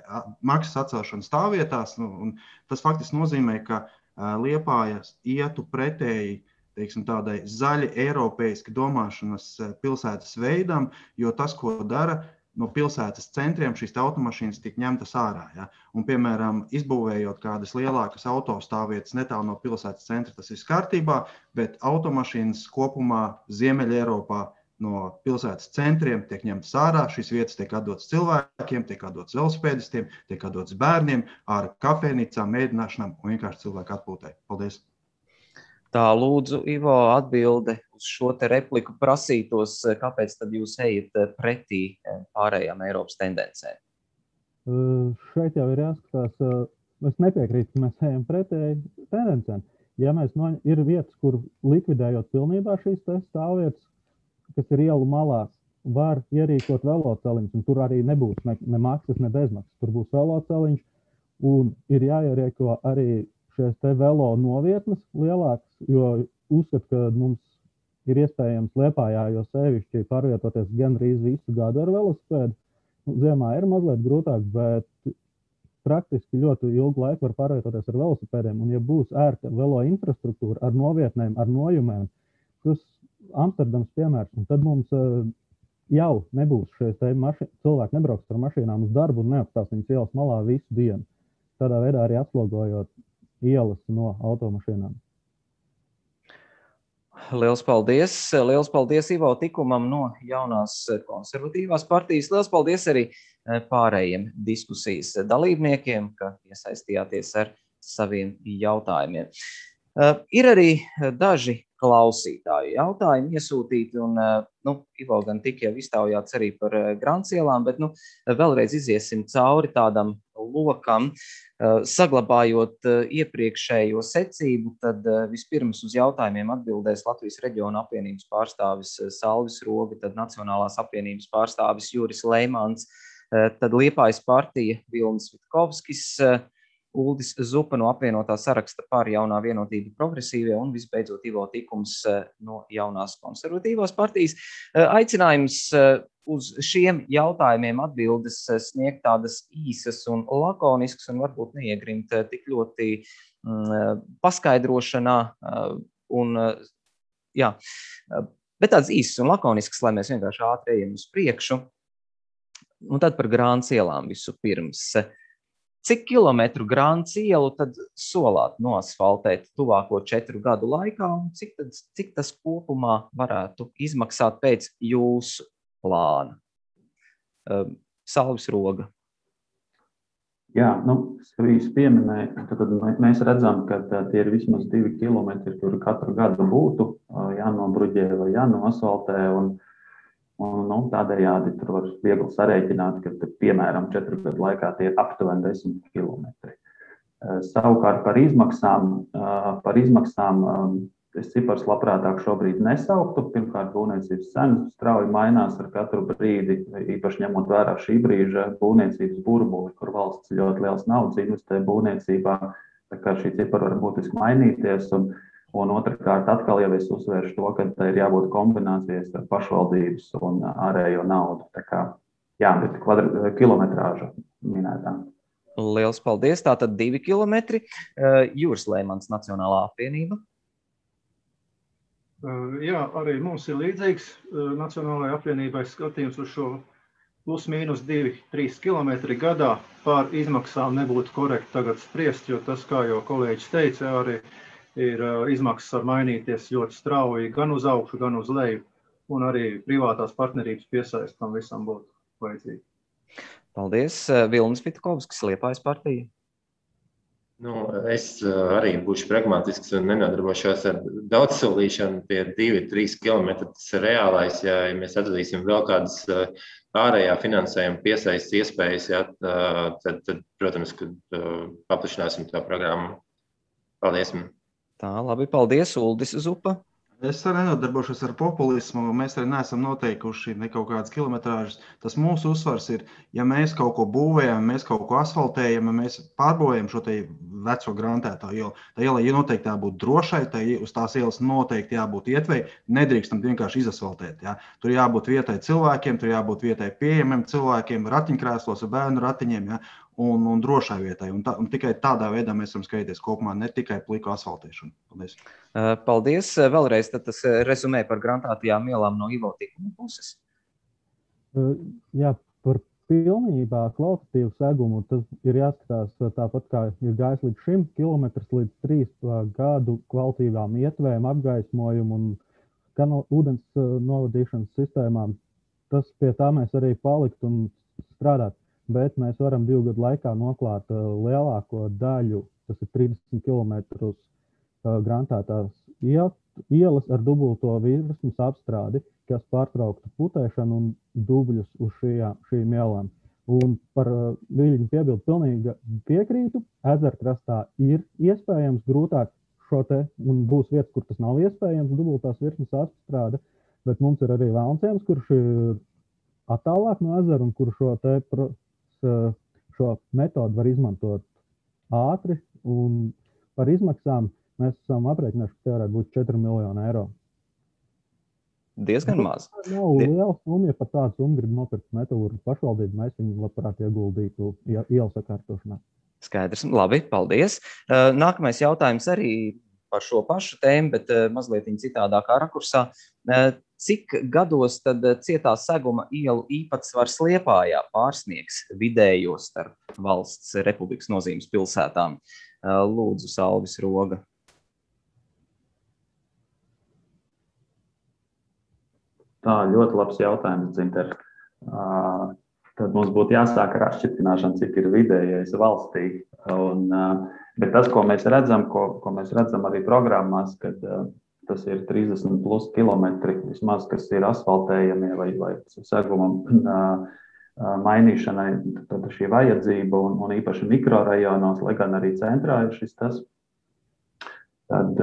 maksas atcelšanu stāvvietās, un tas faktiski nozīmē, ka Liepāja ietu pretēji, teiksim, tādai zaļi eiropeiski domāšanas pilsētas veidam, jo tas, ko dara, no pilsētas centriem šīs automašīnas tiek ņemtas ārā. Ja? Un, piemēram, izbūvējot kādas lielākas autostāvvietas netālu no pilsētas centra, tas ir kārtībā, bet automašīnas kopumā Ziemeļa Eiropā no pilsētas centriem tiek ņemtas ārā. Šīs vietas tiek atdotas cilvēkiem, tiek atdotas velosipēdistiem, tiek atdotas bērniem, ārā kafejnīcām, mēdināšanām un vienkārši cilvēku atpūtai. Paldies! Tā, lūdzu, Ivo, atbilde uz šo te repliku prasītos, kāpēc tad jūs ejat pretī pārējām Eiropas tendencēm? Šeit jau ir jāskatās, es nepiekrītu, ka mēs ejam pretēji tendencēm. Ja mēs ir vietas, kur likvidējot pilnībā šīs stāvvietas, kas ir ielu malās, var ierīkot veloceliņus, un tur arī nebūs ne maksas, ne bezmaksas. Tur būs veloceliņš, un ir jāierīko arī šīs te velo novietnes lielākas, jo uzskat, ka mums ir iespējams Liepājā, jo sevišķi pārvietoties gandrīz visu gadu ar velosipēdu. Ziemā ir mazliet grūtāk, bet praktiski ļoti ilgu laiku var pārvietoties ar velosipēdiem, un ja būs ērta velo infrastruktūra ar novietnēm, ar nojumēm, tas Amsterdams piemērs, un tad mums jau nebūs šeit cilvēki nebrauks ar mašīnām uz darbu un neapstās viņas ielas malā visu dienu. Tādā veidā arī atslogojot ielas no automašīnām. Liels paldies! Liels paldies Ivo Tikumam no jaunās konservatīvās partijas. Liels paldies arī pārējiem diskusijas dalībniekiem, ka iesaistījāties ar saviem jautājumiem. Ir arī daži klausītāju jautājumi iesūtīti, un Ivo gan tik jau iztaujāts arī par Grāncielām, bet vēlreiz iziesim cauri tādam lokam, saglabājot iepriekšējo secību, tad vispirms uz jautājumiem atbildēs Latvijas reģiona apvienības pārstāvis Salvis Roga, tad Nacionālās apvienības pārstāvis Juris Leimans, tad Liepājas partija Vilnis Vitkovskis, Uldis Zupa no apvienotā saraksta par Jaunā vienotība progresīvie un visbeidzot Ivo Tikums no jaunās konservatīvās partijas. Aicinājums uz šiem jautājumiem atbildes sniegt tādas īsas un lakoniskas un varbūt neiegrimt tik ļoti paskaidrošanā bet tādas īsas un lakoniskas, lai mēs vienkārši ātri ejam uz priekšu. Un tad par Grāncielām visu pirms. Cik kilometru Grāncielu tad solāt noasfaltēt tuvāko 4 gadu laikā un cik tas kopumā varētu izmaksāt pēc jūsu plāna? Salvis Roga. Jā, es pieminēju, tad mēs redzam, ka tie ir vismaz 2 kilometri, kuri katru gadu būtu jānobruģē vai jānoasfaltē, un tādējādi tur var viegli sarēķināt, ka, piemēram, 4 gadu laikā tie ir aptuveni 10 kilometri. Savukārt par izmaksām es cipars labprātāk šobrīd nesauktu. Pirmkārt, būvniecības cenas strauji mainās ar katru brīdi, īpaši ņemot vērā šī brīža būvniecības burbuli, kur valsts ļoti liels naudas investē būvniecībā, tā kā šī cipara var būtiski mainīties. Un otrkārt, atkal jau es uzsvēršu to, ka tā ir jābūt kombinācijas ar pašvaldības un ārējo naudu. Tā kā, bet kilometrāža minētā. Liels paldies. Tātad 2 kilometri. Juris Leimans, Nacionālā apvienība. Jā, arī mums ir līdzīgs Nacionālajai apvienībai skatījums uz šo plus mīnus 2-3 kilometri gadā. Par izmaksām nebūtu korekti tagad spriest, jo tas, kā jau kolēģis teica, arī ir izmaksas var mainīties ļoti strauji gan uz augšu, gan uz leju, un arī privātās partnerības piesaist tam visam būtu vajadzīgi. Paldies. Vilnis Vitkovskis, Liepājas partija. Es arī būšu pragmatisks un nenodarbošos ar daudzsolīšanu. Tie 2-3 kilometri tas ir reālais. Ja mēs atradīsim vēl kādas ārējā finansējuma piesaistes iespējas, tad, protams, kad paplašināsim tā programmu. Paldies. Tā, labi, paldies, Uldis Zupa. Es arī nenodarbošos ar populismu, mēs arī neesam noteikuši ne kaut kādas kilometrāžas. Tas mūsu uzsvars ir, ja mēs kaut ko būvējam, mēs kaut ko asfaltējam, ja mēs pārbūvējam šo te veco grantētā ielu. Tā iela noteikti jābūt drošai, uz tās ielas noteikti jābūt ietvei, nedrīkstam vienkārši izasfaltēt. Ja? Tur jābūt vietai cilvēkiem, tur jābūt vietai pieejamiem cilvēkiem, ratiņkrēslos ar bērnu ratiņiem. Ja? Un drošai vietai. Un tikai tādā veidā mēs varam skatīties kopumā, ne tikai pliku asfaltēšanu. Paldies. Paldies. Vēlreiz tad tas rezumē par grantētajām ielām no Ivo Tikuma puses. Jā, par pilnībā kvalitatīvu segumu tas ir jāskatās tāpat, kā ir gājis līdz šim, kilometrs līdz 3 gadu kvalitīvām ietvēm, apgaismojumu un ūdens novadīšanas sistēmām. Tas pie tā mēs arī palikt un strādāt. Bet mēs varam 2 gadu laikā noklāt lielāko daļu, tas ir 30 km grantētās ielas ar dubulto virsmas apstrādi, kas pārtrauktu putēšanu un dubļus uz šīm ielām. Un par Viļņu piebildu pilnīgi piekrītu. Ezerkrastā ir iespējams grūtāk šo te, un būs vietas, kur tas nav iespējams, dubultās virsmas apstrāde, bet mums ir arī Vēlnciems, kurš ir attālāk no ezera un kur šo metodu var izmantot ātri, un par izmaksām mēs esam aprēķinājuši, ka tie varētu būt 4 miljoni eiro. Diezgan maz. Nav liela summa, ja par tādu summu grib nopirkt metodu pašvaldību, mēs viņu labprāt ieguldītu ielu sakārtošanā. Skaidrs. Labi, paldies. Nākamais jautājums arī par šo pašu tēmu, bet mazliet citādākā rakursā. Cik gados tad cietā seguma ielu īpatsvars Liepājā pārsniegs vidējo starp valsts republikas nozīmes pilsētām? Lūdzu, Salvis Roga. Tā, ļoti labs jautājums, Dzinter. Tad mums būtu jāsāk ar atšķirtināšanu, cik ir vidējais valstī. Bet tas, ko mēs redzam, ko mēs redzam arī programmās, kad tas ir 30 plus kilometri, vismaz, kas ir asfaltējamie vai segumam mainīšanai, tad šī vajadzība un īpaši mikrorajonos, lai gan arī centrā ir šis tas. Tad,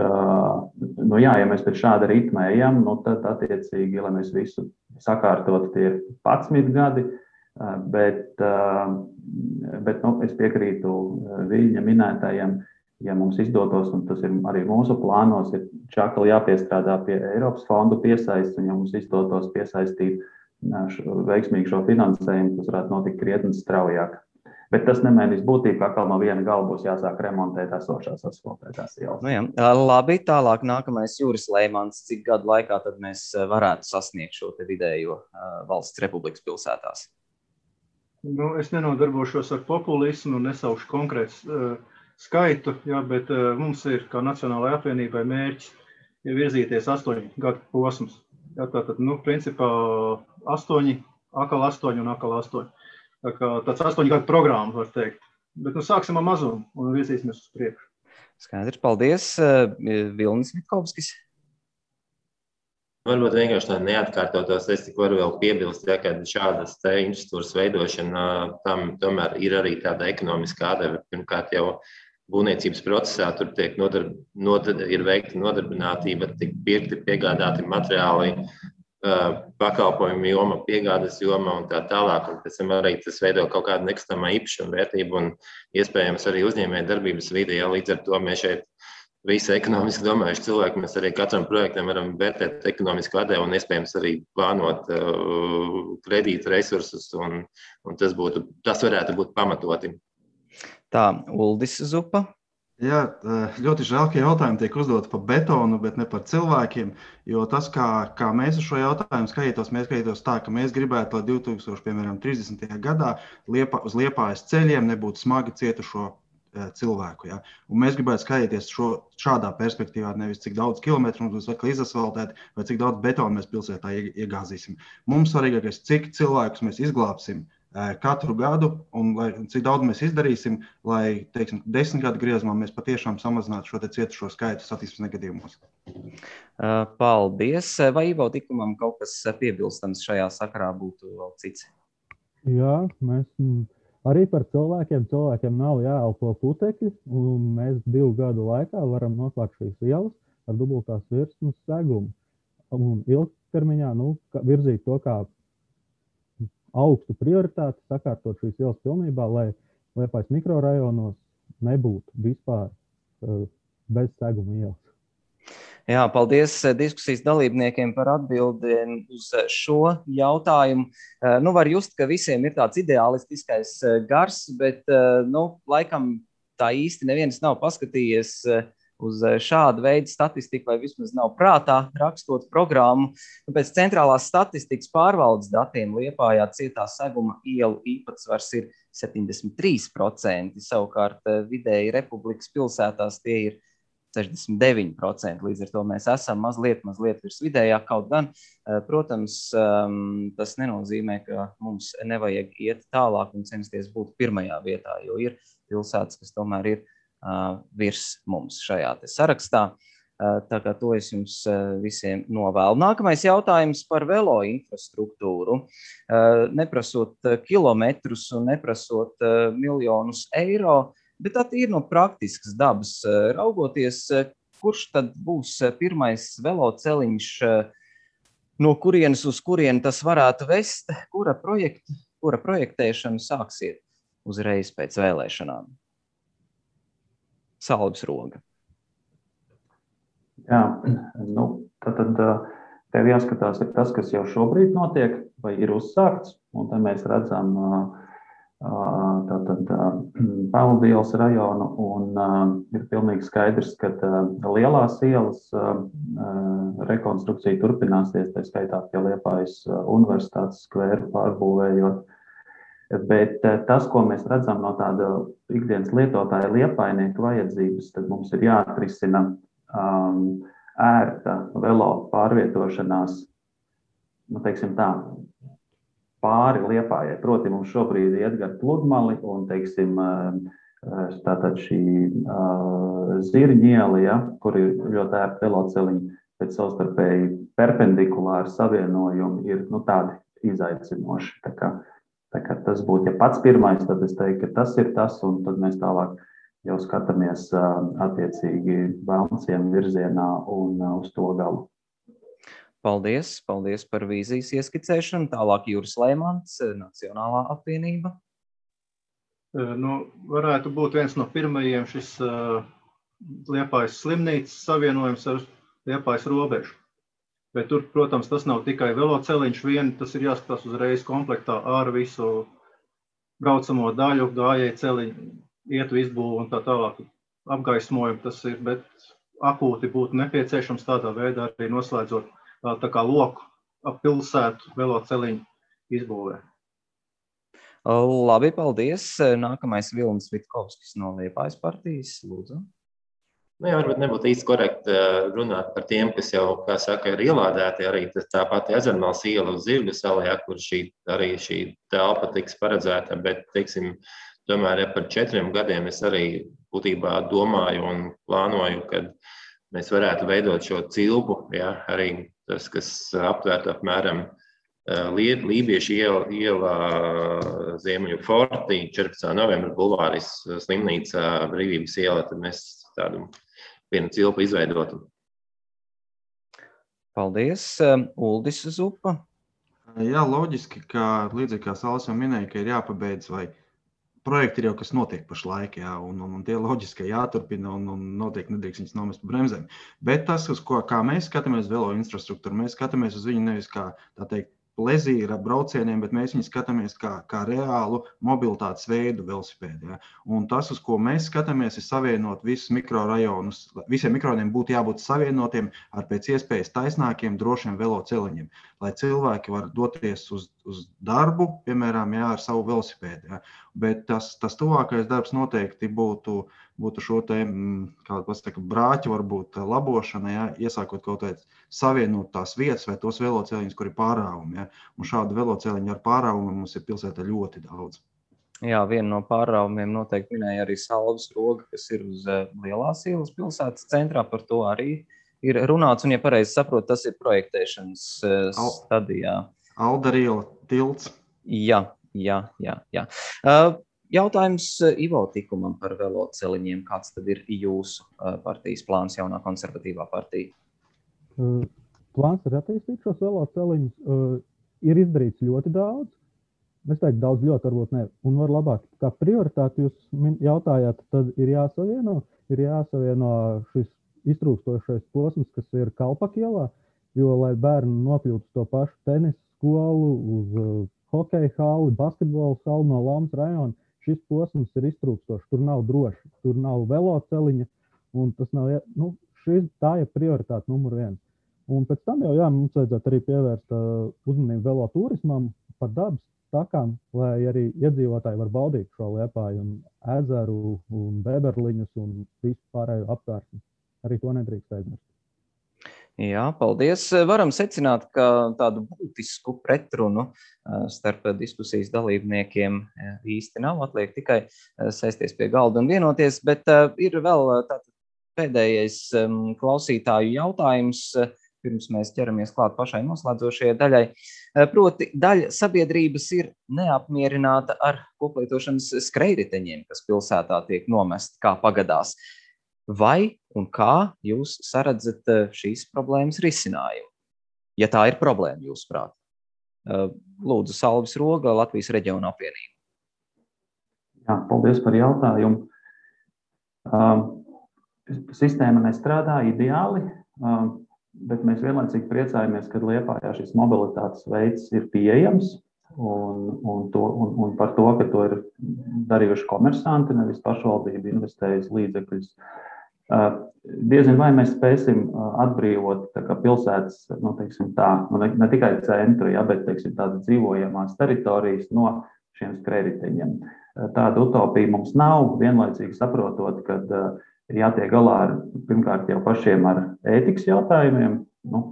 ja mēs pēc šāda ritma ejam, tad attiecīgi, lai mēs visu sakārtot, tie ir 11 gadi, bet es piekrītu viņa minētajiem, ja mums izdotos, un tas ir arī mūsu plānos, ir čakli jāpiestrādā pie Eiropas fondu piesaists, un ja mums izdotos piesaistīt veiksmīgi šo finansējumu, tas varētu notikt krietni straujāk. Bet tas nemainīs būtību, ka atkal no viena gala būs jāsāk remontēt esošās asfaltētās ielas. Labi, tālāk nākamais Juris Leimans. Cik gadu laikā tad mēs varētu sasniegt šo te vidējo valsts republikas pilsētās? Es nenodarbošos ar populismu un nesaukšu konkrēts skaitu, bet mums ir, kā Nacionālajai apvienībai, mērķis virzīties 8 gadu posmus. Tātad, principā 8, akal 8 un akal 8. Tā kā tāds 8 gadu programma, var teikt. Bet sāksim ar mazumu un virzīsimies uz priekšu. Skaidrs, paldies. Vilnis Vitkovskis. Varbūt vienkārši tā neatkārtotos, es tik varu vēl piebilst, ka šādas infrastruktūras veidošana, tam tomēr ir arī tāda ekonomiskā atdeve. Pirmkārt jau būvniecības procesā tur tiek ir veikta nodarbinātība, tiek pirkti, piegādāti materiāli, pakalpojumu joma, piegādes joma un tā tālāk. Un pēc tam arī tas veido kaut kādu nekustamā īpašuma vērtību un iespējams arī uzņēmēju darbības vidi. Līdz ar to mēs šeit visi ekonomiski domājuši cilvēki, mēs arī katram projektam varam vērtēt ekonomisku atdevu un iespējams arī plānot kredītu resursus un tas varētu būt pamatoti. Tā, Uldis Zupa. Jā, ļoti žēl, ka jautājumi tiek uzdoti par betonu, bet ne par cilvēkiem, jo tas, kā mēs uz šo jautājumu skatītos tā, ka mēs gribētu, lai 2030. gadā uz Liepājas ceļiem nebūtu smagi cietušo cilvēku. Ja? Un mēs gribētu skatīties šādā perspektīvā, nevis cik daudz kilometru mums būs atkal izasfaltēti vai cik daudz betonu mēs pilsētā iegāzīsim. Mums svarīgākais, cik cilvēkus mēs izglābsim katru gadu un cik daudz mēs izdarīsim, lai, 10 gadu griezumā mēs patiešām samazinātu šo cietušo skaitu satiksmes negadījumos. Paldies. Vai Ivo Tikumam kaut kas piebilstams šajā sakarā būtu vēl cits? Jā, mēs arī par cilvēkiem nav jāelpo putekļi, un mēs 2 gadu laikā varam noslēgt šīs ielas ar dubultās virsmas segumu. Un ilgtermiņā virzīt to kā augstu prioritāti, sakārtot šīs ielas pilnībā, lai Liepājas mikrorajonos nebūtu vispār bez seguma ielas. Jā, paldies diskusijas dalībniekiem par atbildēm uz šo jautājumu. Var just, ka visiem ir tāds ideālistiskais gars, bet laikam tā īsti neviens nav paskatījies uz šādu veidu statistiku, vai vismaz nav prātā rakstot programmu. Pēc centrālās statistikas pārvaldes datiem Liepājā cietā seguma ielu īpatsvars ir 73%, savukārt vidēji republikas pilsētās tie ir 69%. Līdz ar to mēs esam mazliet virs vidējā, kaut gan, protams, tas nenozīmē, ka mums nevajag iet tālāk un censties būt pirmajā vietā, jo ir pilsētas, kas tomēr ir virs mums šajā te sarakstā. Tā kā to es jums visiem novēlu. Nākamais jautājums par velo infrastruktūru. Neprasot kilometrus un neprasot miljonus eiro, bet tā ir no praktiskas dabas raugoties, kurš tad būs pirmais veloceliņš, no kurienes uz kurieni tas varētu vest, kura projektēšanu sāksiet uzreiz pēc vēlēšanām? Salvis Roga. Jā, tad tev jāskatās ir tas, kas jau šobrīd notiek vai ir uzsākts, un te mēs redzam tātad Pelndielas rajonu, un ir pilnīgi skaidrs, ka lielās ielas rekonstrukcija turpināsies, tā skaitā pie Liepājas universitātes skvēru pārbūvējot. Bet tas, ko mēs redzam no tāda ikdienas lietotāja liepājnieka vajadzības, tad mums ir jāatrisina ērta velo pārvietošanās, teiksim tā, pāri Liepājai. Proti, mums šobrīd iet gar pludmali un, teiksim, tātad šī Zirņiela, ja, kur ir ļoti ērti veloceliņi, bet savstarpēji perpendikulāri savienojumi ir, tādi izaicinoši. Tā kā tas būtu, ja pats pirmais, tad es teiktu, ka tas ir tas, un tad mēs tālāk jau skatāmies attiecīgi Velnciem virzienā un uz to galu. Paldies par vīzijas ieskicēšanu. Tālāk Juris Leimans, Nacionālā apvienība. Varētu būt viens no pirmajiem šis Liepājas slimnīcas savienojums ar Liepājas robežu. Bet tur, protams, tas nav tikai veloceliņš vien, tas ir jāskatās uzreiz komplektā ar visu braucamo daļu, gājēju celiņu, ietu izbūvu un tā tālāk apgaismojumu tas ir, bet akūti būtu nepieciešams tādā veidā arī noslēdzot tā kā loku ap pilsētu veloceliņu izbūvē. Labi, paldies. Nākamais Vilnis Vitkovskis no Liepājas partijas, lūdzu. Varbūt nebūtu īsti korekti runāt par tiem, kas jau, kā saka, ir ielādēti arī tā pati Ezermales iela uz Zirgu salā, kur šī telpa tiks paredzēta, bet, teiksim, tomēr par 4 gadiem es arī būtībā domāju un plānoju, kad mēs varētu veidot šo cilpu, ja, arī tas, kas aptvērtu apmēram Lībiešu iela, Ziemeļu fortī, 14. novembra bulvāris, slimnīca, Brīvības iela, tad mēs tādu vienu cilpu izveidotu. Paldies. Uldis Zupa. Jā, loģiski, ka līdzīgi kā Saulis jau minēja, ka ir jāpabeidz vai projekti ir jau, kas notiek pašlaik, jā, un tie loģiski jāturpina un noteikti nedrīkst viņus nomest pa bremzēm. Bet tas, kā mēs skatāmies velo infrastruktūru, mēs skatāmies uz viņu nevis kā, tā teikt, plezīra braucieniem, bet mēs viņu skatāmies kā reālu mobilitātes veidu velosipēdu. Ja? Un tas, uz ko mēs skatāmies, ir savienot visus mikrorajonus. Visiem mikrorajoniem būtu jābūt savienotiem ar pēc iespējas taisnākiem, drošiem veloceliņiem, lai cilvēki var doties uz darbu, piemēram, jā, ar savu velosipēdu. Ja? Bet tas tuvākais darbs noteikti būtu šo te, kā pasaka, brāķu varbūt labošana, ja? Iesākot kaut vai savienot tās vietas vai tos veloceliņus, kur ir pārāvumi. Ja? Un šādu veloceliņu ar pārāvumu mums ir pilsētā ļoti daudz. Jā, viena no pārāvumiem noteikti minēja arī Salvas roga, kas ir uz Lielās ielas pilsētas centrā, par to arī ir runāts, un, ja pareizi saprot, tas ir projektēšanas stadijā. Aldariela tilts. Jā. Jautājums Ivo Tikumam par veloceliņiem. Kāds tad ir jūsu partijas plāns, jaunā konservatīvā partija? Plāns ir attīstīt šos veloceliņus. Ir izdarīts ļoti daudz. Es teiktu, daudz ļoti varbūt ne. Un var labāk, kā prioritāti jūs jautājāt, tad ir jāsavieno šis iztrūkstošais posms, kas ir Kalpakielā, jo, lai bērni nokļūtu to pašu tenis skolu, uz hokeja halli, basketbola halli no Laumas rajona, šis posms ir iztrūkstošs, tur nav droši, tur nav veloceliņa, un tas nav, tā ir prioritāte numur 1. Un pēc tam jau, mums vajadzētu arī pievērst uzmanību veloturismam par dabas takām, lai arī iedzīvotāji var baudīt šo Liepāju un ezeru un beberliņus un visu pārējo apkārtni. Arī to nedrīkst aizmirst. Jā, paldies. Varam secināt, ka tādu būtisku pretrunu starp diskusijas dalībniekiem īsti nav. Atliek tikai sēsties pie galda un vienoties, bet ir vēl pēdējais klausītāju jautājums, pirms mēs ķeramies klāt pašai noslēdzošajai daļai. Proti, daļa sabiedrības ir neapmierināta ar koplietošanas skrejriteņiem, kas pilsētā tiek nomest kā pagadās. Vai un kā jūs saredzat šīs problēmas risinājumu? Ja tā ir problēma, jūsuprāt. Lūdzu, Salvis Roga, Latvijas reģiona apvienība. Jā, paldies par jautājumu. Sistēma nestrādā ideāli, bet mēs vienlaicīgi priecājamies, ka Liepājā šis mobilitātes veids ir pieejams. un par to, ka to ir darījuši komersanti, nevis pašvaldība investējusi līdzekļus. Diezin vai mēs spēsim atbrīvot pilsētas, teiksim tā, ne tikai centru, bet teiksim, tādas dzīvojamās teritorijas no šiem skrējriteņiem. Tāda utopija mums nav, vienlaicīgi saprotot, ka ir jātiek galā pirmkārt jau pašiem ar ētikas jautājumiem.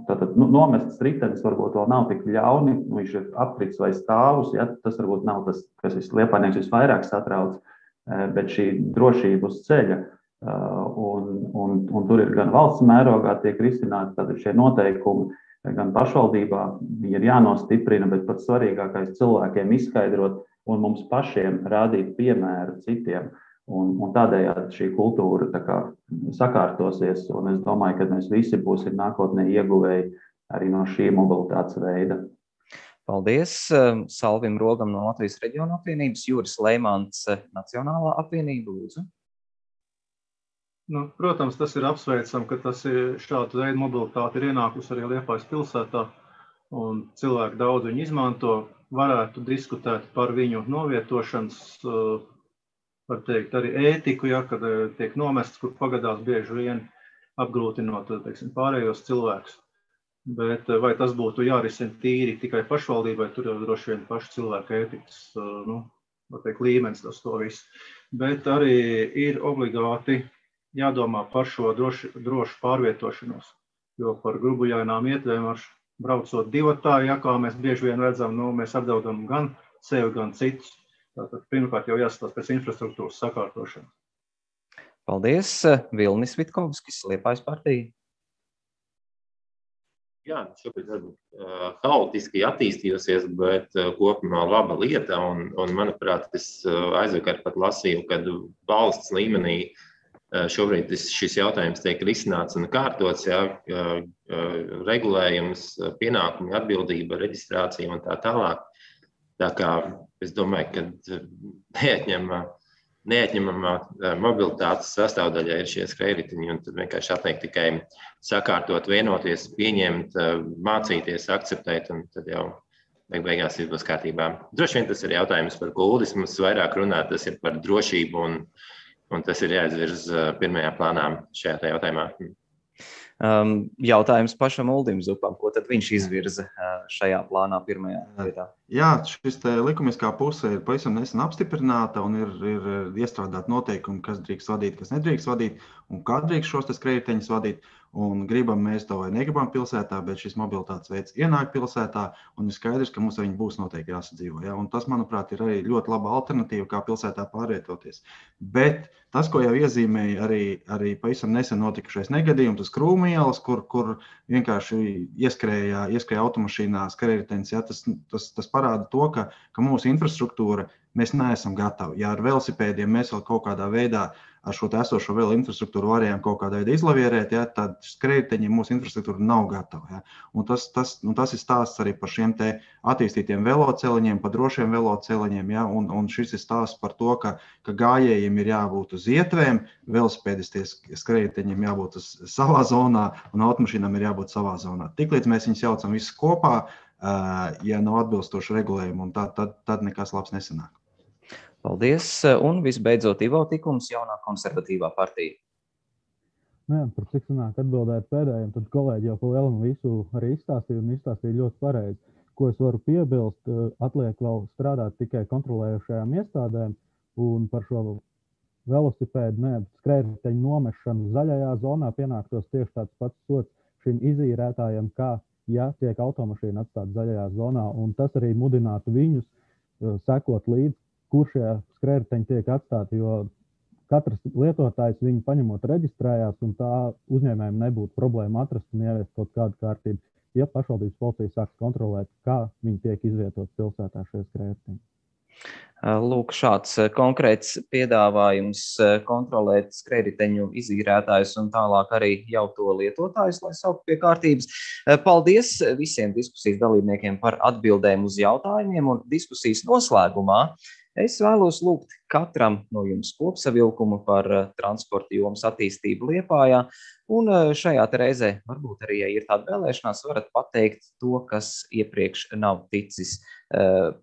Tātad nomestas ritenis varbūt vēl nav tik ļauni, viņš ir aprits vai stāvus, tas varbūt nav tas, kas Liepājnieks visvairāk satrauc, bet šī drošība uz ceļa. Un tur ir gan valsts mērogā tiek risināti tātad šie noteikumi, gan pašvaldībā viņi ir jānostiprina, bet pats svarīgākais cilvēkiem izskaidrot un mums pašiem rādīt piemēru citiem. Un tādējādi šī kultūra tā kā sakārtosies, un es domāju, ka mēs visi būsim nākotnē ieguvēji arī no šī mobilitātes veida. Paldies Salvim Rogam no Latvijas reģiona apvienības, Juris Leimants, Nacionālā apvienība, lūdzu. Protams, tas ir apsveicam, ka tas ir šāda veida mobilitāte ir ienākusi arī Liepājas pilsētā, un cilvēki daudz viņu izmanto, varētu diskutēt par viņu novietošanas, var teikt, arī ētiku, kad tiek nomests, kur pagadās bieži vien apgrūtinot, teiksim, pārējos cilvēkus. Bet vai tas būtu jārisina tīri tikai pašvaldībai, tur jau droši vien paši cilvēku ētikas, var teikt, līmenis tas to visu. Bet arī ir obligāti jādomā par šo drošu pārvietošanos, jo par grubujainām ietvēm braucot divatā, kā mēs bieži vien redzam, mēs apdraudam gan sevi, gan citus. Tātad pirmkārt jau jāskatās pēc infrastruktūras sakārtošanas. Paldies, Vilnis Vitkovskis, Liepājas partija. Jā, šobrīd haotiski attīstījusies, bet kopumā laba lieta, un manuprāt, es aizvakar pat lasīju, kad valsts līmenī šobrīd šis jautājums tiek risināts un kārtots, regulējums, pienākumi, atbildība, reģistrācija un tā tālāk. Tā kā es domāju, ka neatņemamā mobilitātes sastāvdaļā ir šie skrējriteņi, un tad vienkārši atliek tikai sakārtot, vienoties, pieņemt, mācīties, akceptēt, un tad jau beigās viss būs kārtībā. Droši vien tas ir jautājums par Uldis, mums vairāk runāt, tas ir par drošību, un tas ir jāizvirz pirmajā plānā šajā jautājumā. Jautājums pašam Uldim Zupam, ko tad viņš izvirza šajā plānā pirmajā vietā? Jā, šis likumiskā puse ir pavisam nesen apstiprināta un ir iestrādāt noteikumi, kas drīkst vadīt, kas nedrīkst vadīt un kā drīkst šos skrējriteņus vadīt. Un gribam mēs to vai negribam pilsētā, bet šis mobilitātes veids ienāk pilsētā un ir skaidrs, ka mums ar viņu būs noteikti jāsadzīvo. Ja? Un tas, manuprāt, ir arī ļoti laba alternatīva, kā pilsētā pārvietoties. Bet tas, ko jau iezīmēja arī pavisam nesen notikušais negadījums, tas Krūmu ielas, kur vienkārši ieskrēja automašīnā skrējritenis, ja? Tas parāda to, ka mūsu infrastruktūra, mēs neesam gatavi. Ja ar velosipēdiem mēs vēl kaut kādā veidā ar šo esošo vēl infrastruktūru varējām kaut kādā veidā izlavierēt, tad skrējriteņiem mūsu infrastruktūra nav gatava. Un tas ir stāsts arī par šiem te attīstītiem veloceliņiem, par drošiem veloceliņiem. Un šis ir stāsts par to, ka gājējiem ir jābūt uz ietvēm, velosipēdisties skrējriteņiem jābūt uz savā zonā un automašīnām ir jābūt savā zonā. Tiklīdz mēs viņus jaucam visus kopā, ja nav atbilstoši regulējumi, un tad nekas labs nesanāk. Paldies. Un visbeidzot, Ivo Tikums, jaunā konservatīvā partija. Par cik sanāk atbildēt pēdējiem, tad kolēģi jau pa lielam visu arī izstāstīja ļoti pareizi. Ko es varu piebilst, atliek vēl strādāt tikai kontrolējušajām iestādēm un par šo velosipēdu, skrējriteņu nomešanu zaļajā zonā pienāktos tieši tāds pats sots šim izīrētājiem, kā ja tiek automašīna atstāta zaļajā zonā, un tas arī mudinātu viņus sekot līdzi, kur šie skrējriteņi tiek atstāti, jo katrs lietotājs viņu paņemot reģistrējās, un tā uzņēmējiem nebūtu problēma atrast un ieviest kaut kādu kārtību, ja pašvaldības policija sāks kontrolēt, kā viņi tiek izvietot pilsētā šie skrējriteņi. Lūk, šāds konkrēts piedāvājums kontrolēt skrējriteņu izīrētājus un tālāk arī jau to lietotājus, lai saukt pie kārtības. Paldies visiem diskusijas dalībniekiem par atbildēm uz jautājumiem, un diskusijas noslēgumā Es vēlos lūgt katram no jums kopsavilkumu par transporta jomas attīstību Liepājā, un šajā reizē varbūt arī, ja ir tāda vēlēšanās, varat pateikt to, kas iepriekš nav ticis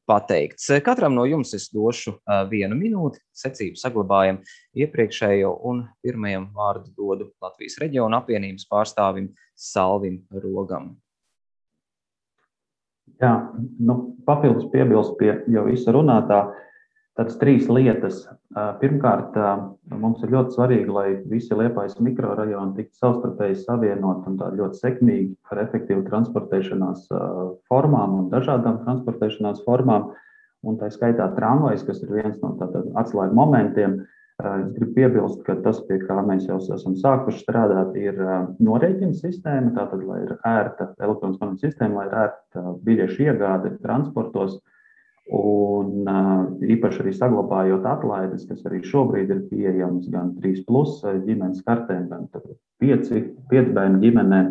pateikts. Katram no jums es došu 1 minūti, secību saglabājam iepriekšējo, un pirmajam vārdu dodu Latvijas reģiona apvienības pārstāvim Salvim Rogam. Jā, papildus piebilst pie jau visa runātā, tādas 3 lietas. Pirmkārt, mums ir ļoti svarīgi, lai visi Liepājas mikrorajoni tiktu savstarpēji savienot un tā ļoti sekmīgi ar efektīvu transportēšanās formām un dažādām transportēšanās formām. Un tā skaitā tramvajs, kas ir viens no atslēgu momentiem. Es gribu piebilst, ka tas, pie kā mēs jau esam sākuši strādāt, ir norēķina sistēma, tātad, lai ir ērta elektroniskā sistēma, lai ir ērta biļešu iegāde transportos, un īpaši arī saglabājot atlaides, kas arī šobrīd ir pieejams gan 3+ ģimenes kartēm, gan 5 bērnu ģimenēm.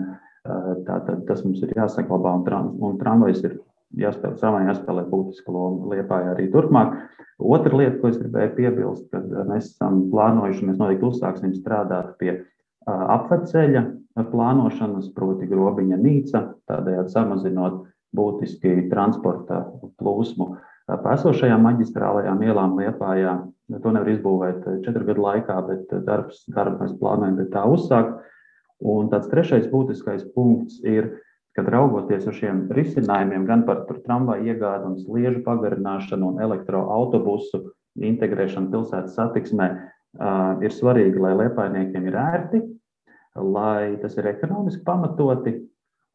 Tātad tas mums ir jāsaglabā, un tramvajs ir jāspēlē būtisku lomu Liepājā arī turpmāk. Otra lieta, ko es gribēju piebilst, kad mēs esam plānojuši, mēs noteikti uzsāksim strādāt pie apveceļa plānošanas, proti Grobiņa Nīca, tādējādi samazinot būtiski transporta plūsmu pa esošajām maģistrālajām ielām Liepājā. To nevar izbūvēt 4 gadu laikā, bet darbu mēs plānojam pie tā uzsākt. Un tāds trešais būtiskais punkts ir, kad raugoties uz šiem risinājumiem, gan par tramvaju iegādi un sliežu pagarināšanu un elektroautobusu integrēšanu pilsētas satiksmē, ir svarīgi, lai liepājniekiem ir ērti, lai tas ir ekonomiski pamatoti.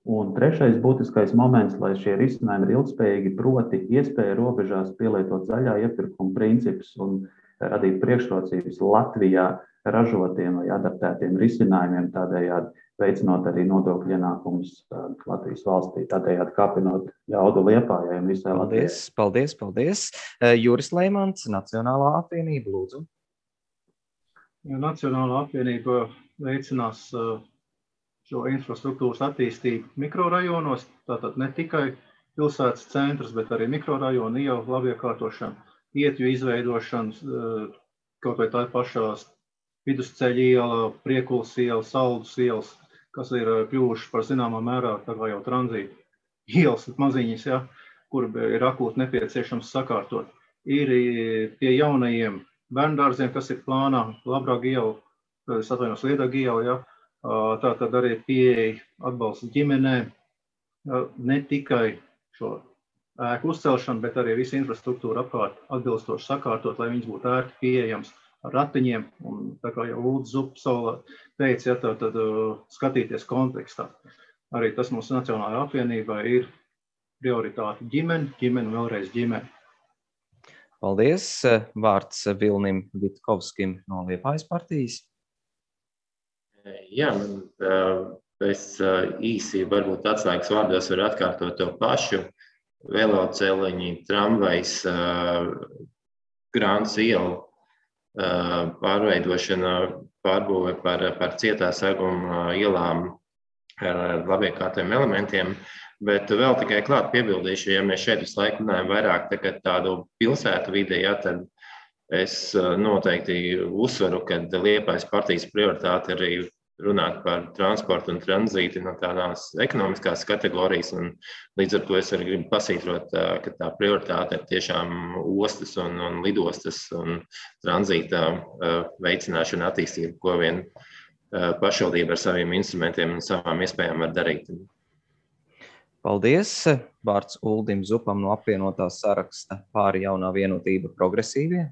Un trešais būtiskais moments, lai šie risinājumi ir ilgspējīgi, proti iespēja robežās pielietot zaļā iepirkuma principus un radīt priekšrocības Latvijā ražotiem vai adaptētiem risinājumiem, tādējādi veicinot arī nodokļu ienākumus Latvijas valstī, tādējādi kāpinot jaudu Liepājai un visai Latvijai. Paldies. Juris Leimans, Nacionālā apvienība, lūdzu. Nacionālā apvienība veicinās šo infrastruktūras attīstību mikrorajonos, tātad ne tikai pilsētas centrs, bet arī mikrorajonu ielu labiekārtošanu, ietju izveidošanas, kaut vai tā pašās Vidusceļa iela, Priekulas iela, Saldus ielas, kas ir kļuvuši par zināmā mērā tā kā jau tranzīta ielas maziņas, ja, kur ir akūti nepieciešams sakārtot. Ir pie jaunajiem bērndārziem, kas ir plānā, Labrāga iela, Liedaga iela, ja, tātad arī pieeja atbalsta ģimenēm, ne tikai šo ēku uzcelšanu, bet arī visu infrastruktūru apkārt atbilstoši sakārtot, lai viņas būtu ērti pieejams ar ratiņiem, un tā kā jau Uldis Zupa teica, ja, tad skatīties kontekstā. Arī tas mūsu Nacionālajā apvienībā ir prioritāte ģimene un vēlreiz ģimene. Paldies. Vārds Vilnim Vitkovskim no Liepājas partijas. Jā, es īsi varbūt atslēgas vārdos varu atkārtot to pašu. Veloceliņi, tramvajs, Grāns iela, pārveidošana, pārbūve par cietā seguma ielām ar labiekārtiem elementiem, bet vēl tikai klāt piebildīšu, ja mēs šeit visu laiku runājam vairāk tādu pilsētu vidē, ja, tad es noteikti uzsveru, ka Liepājas partijas prioritāte arī runāt par transportu un tranzīti no tādās ekonomiskās kategorijas, un līdz ar to es arī gribu pasītrot, ka tā prioritāte ir tiešām ostas un lidostas un tranzīta veicināšana attīstība, ko vien pašvaldība ar saviem instrumentiem un savām iespējām var darīt. Paldies. Vārds Uldim Zupam no apvienotās saraksta Pāri jaunā vienotība progresīvie.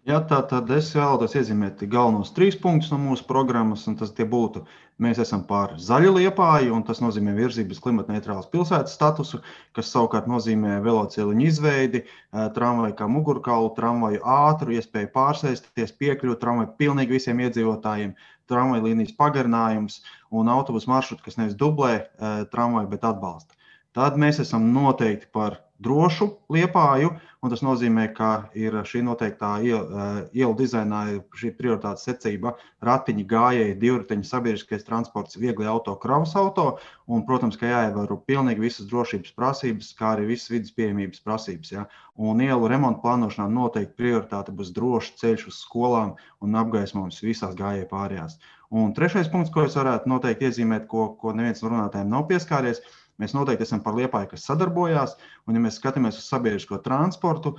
Jā, tātad es vēlētos iezīmēt galvenos 3 punktus no mūsu programmas, un tas tie būtu: mēs esam par zaļu Liepāju, un tas nozīmē virzības klimatneitrālas pilsētas statusu, kas savukārt nozīmē veloceliņu izveidi, tramvaju kā mugurkaulu, tramvaju ātru, iespēju pārsēsties, piekļūt tramvaju pilnīgi visiem iedzīvotājiem, tramvaju līnijas pagarinājums un autobusu maršrutu, kas nevis dublē tramvaju, bet atbalsta. Tad mēs esam noteikti par drošu Liepāju, un tas nozīmē, ka ir šī noteiktā ielu dizainā šī prioritātes secība ratiņi, gājēji, divriteņi, sabiedriskais transports, viegli auto, kravas auto, un, protams, ka jāievēro pilnīgi visas drošības prasības, kā arī visas vidas pieejamības prasības. Ja? Un ielu remontu plānošanā noteikti prioritāte būs drošs ceļš uz skolām un apgaismojums visās gājēju pārējās. Un trešais punkts, ko es varētu noteikti iezīmēt, ko neviens no runātājiem nav pieskāries, mēs noteikti esam par Liepāju, kas sadarbojās, un ja mēs skatāmies uz sabiedrisko transportu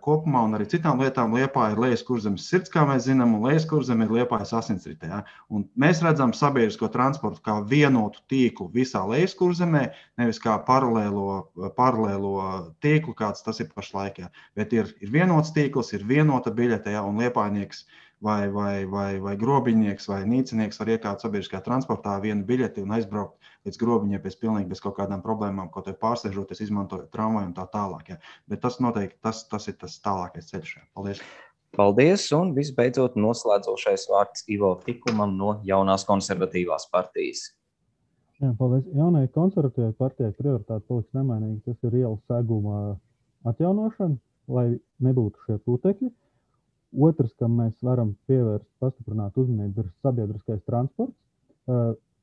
kopumā un arī citām lietām, Liepāja ir Lejaskurzemes sirds, kā mēs zinām, un Lejaskurzeme ir Liepājas asinsritē. Ja? Un mēs redzam sabiedrisko transportu kā vienotu tīklu visā Lejaskurzemē, nevis kā paralēlo tīklu, kāds tas ir pašlaik. Ja? Bet ir vienots tīkls, ir vienota biļete, ja? Un liepājnieks vai grobiņnieks vai nīcinieks var iekāpt sabiedriskajā transportā vienu biļeti un aizbraukt līdz grobiņiem bez kaut kādām problēmām, kaut vai pārsēžoties, izmantojot tramvaju un tā tālāk. Ja. Bet tas noteikti tas ir tas tālākais ceļš. Paldies! Paldies, un visbeidzot noslēdzošais vārds Ivo Tikumam no Jaunās konservatīvās partijas. Jā, paldies. Jaunajai konservatīvai partijai prioritāte paliks nemainīgi. Tas ir ielu seguma atjaunošana, lai nebūtu šie putekļi. Otrs, kam mēs varam pievērst pastiprināt uzmanību, ir sabiedriskais transports,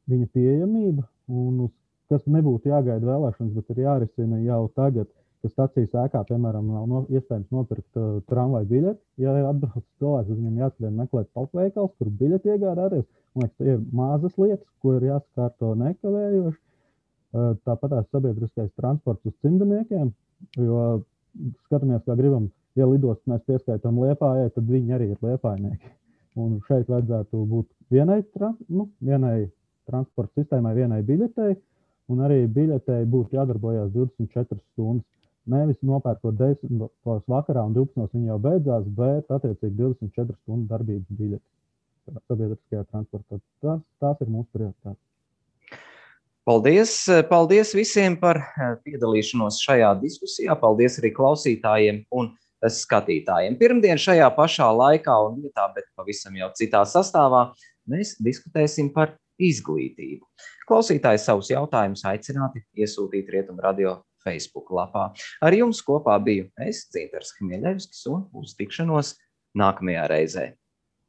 viņa pieejamība, un kas nebūtu jāgaida vēlēšanas, bet ir jārisina jau tagad, ka stacijas ēkā, piemēram, nav iespējams nopirkt tramvaju biļeti. Ja atbrauc cilvēks, viņam jāskrien meklēt pašveikals, kur biļeti iegādāties. Man liekas, tie ir mazas lietas, ko ir jāsakārto nekavējoši. Tāpatās sabiedriskais transports uz cimdniekiem, jo skatāmies, kā gribam. Ja lidostu mēs pieskaitām Liepājai, tad viņi arī ir liepājnieki. Un šeit vajadzētu būt vienai transporta sistēmai, vienai biļetei, un arī biļetei būtu jādarbojās 24 stundas. Nevis nopērkot 10 vakarā un 12 viņi jau beidzās, bet attiecīgi 24 stundu darbības biļeti sabiedriskajā transportā. Tās ir mūsu prioritātes. Paldies visiem par piedalīšanos šajā diskusijā. Paldies arī klausītājiem un skatītājiem. Pirmdien šajā pašā laikā un vietā, bet pavisam jau citā sastāvā, mēs diskutēsim par izglītību. Klausītāji savus jautājumus aicināti iesūtīt Rietumu Radio Facebook lapā. Ar jums kopā biju es, Dzintars Hmieļevskis, un uz tikšanos nākamajā reizē.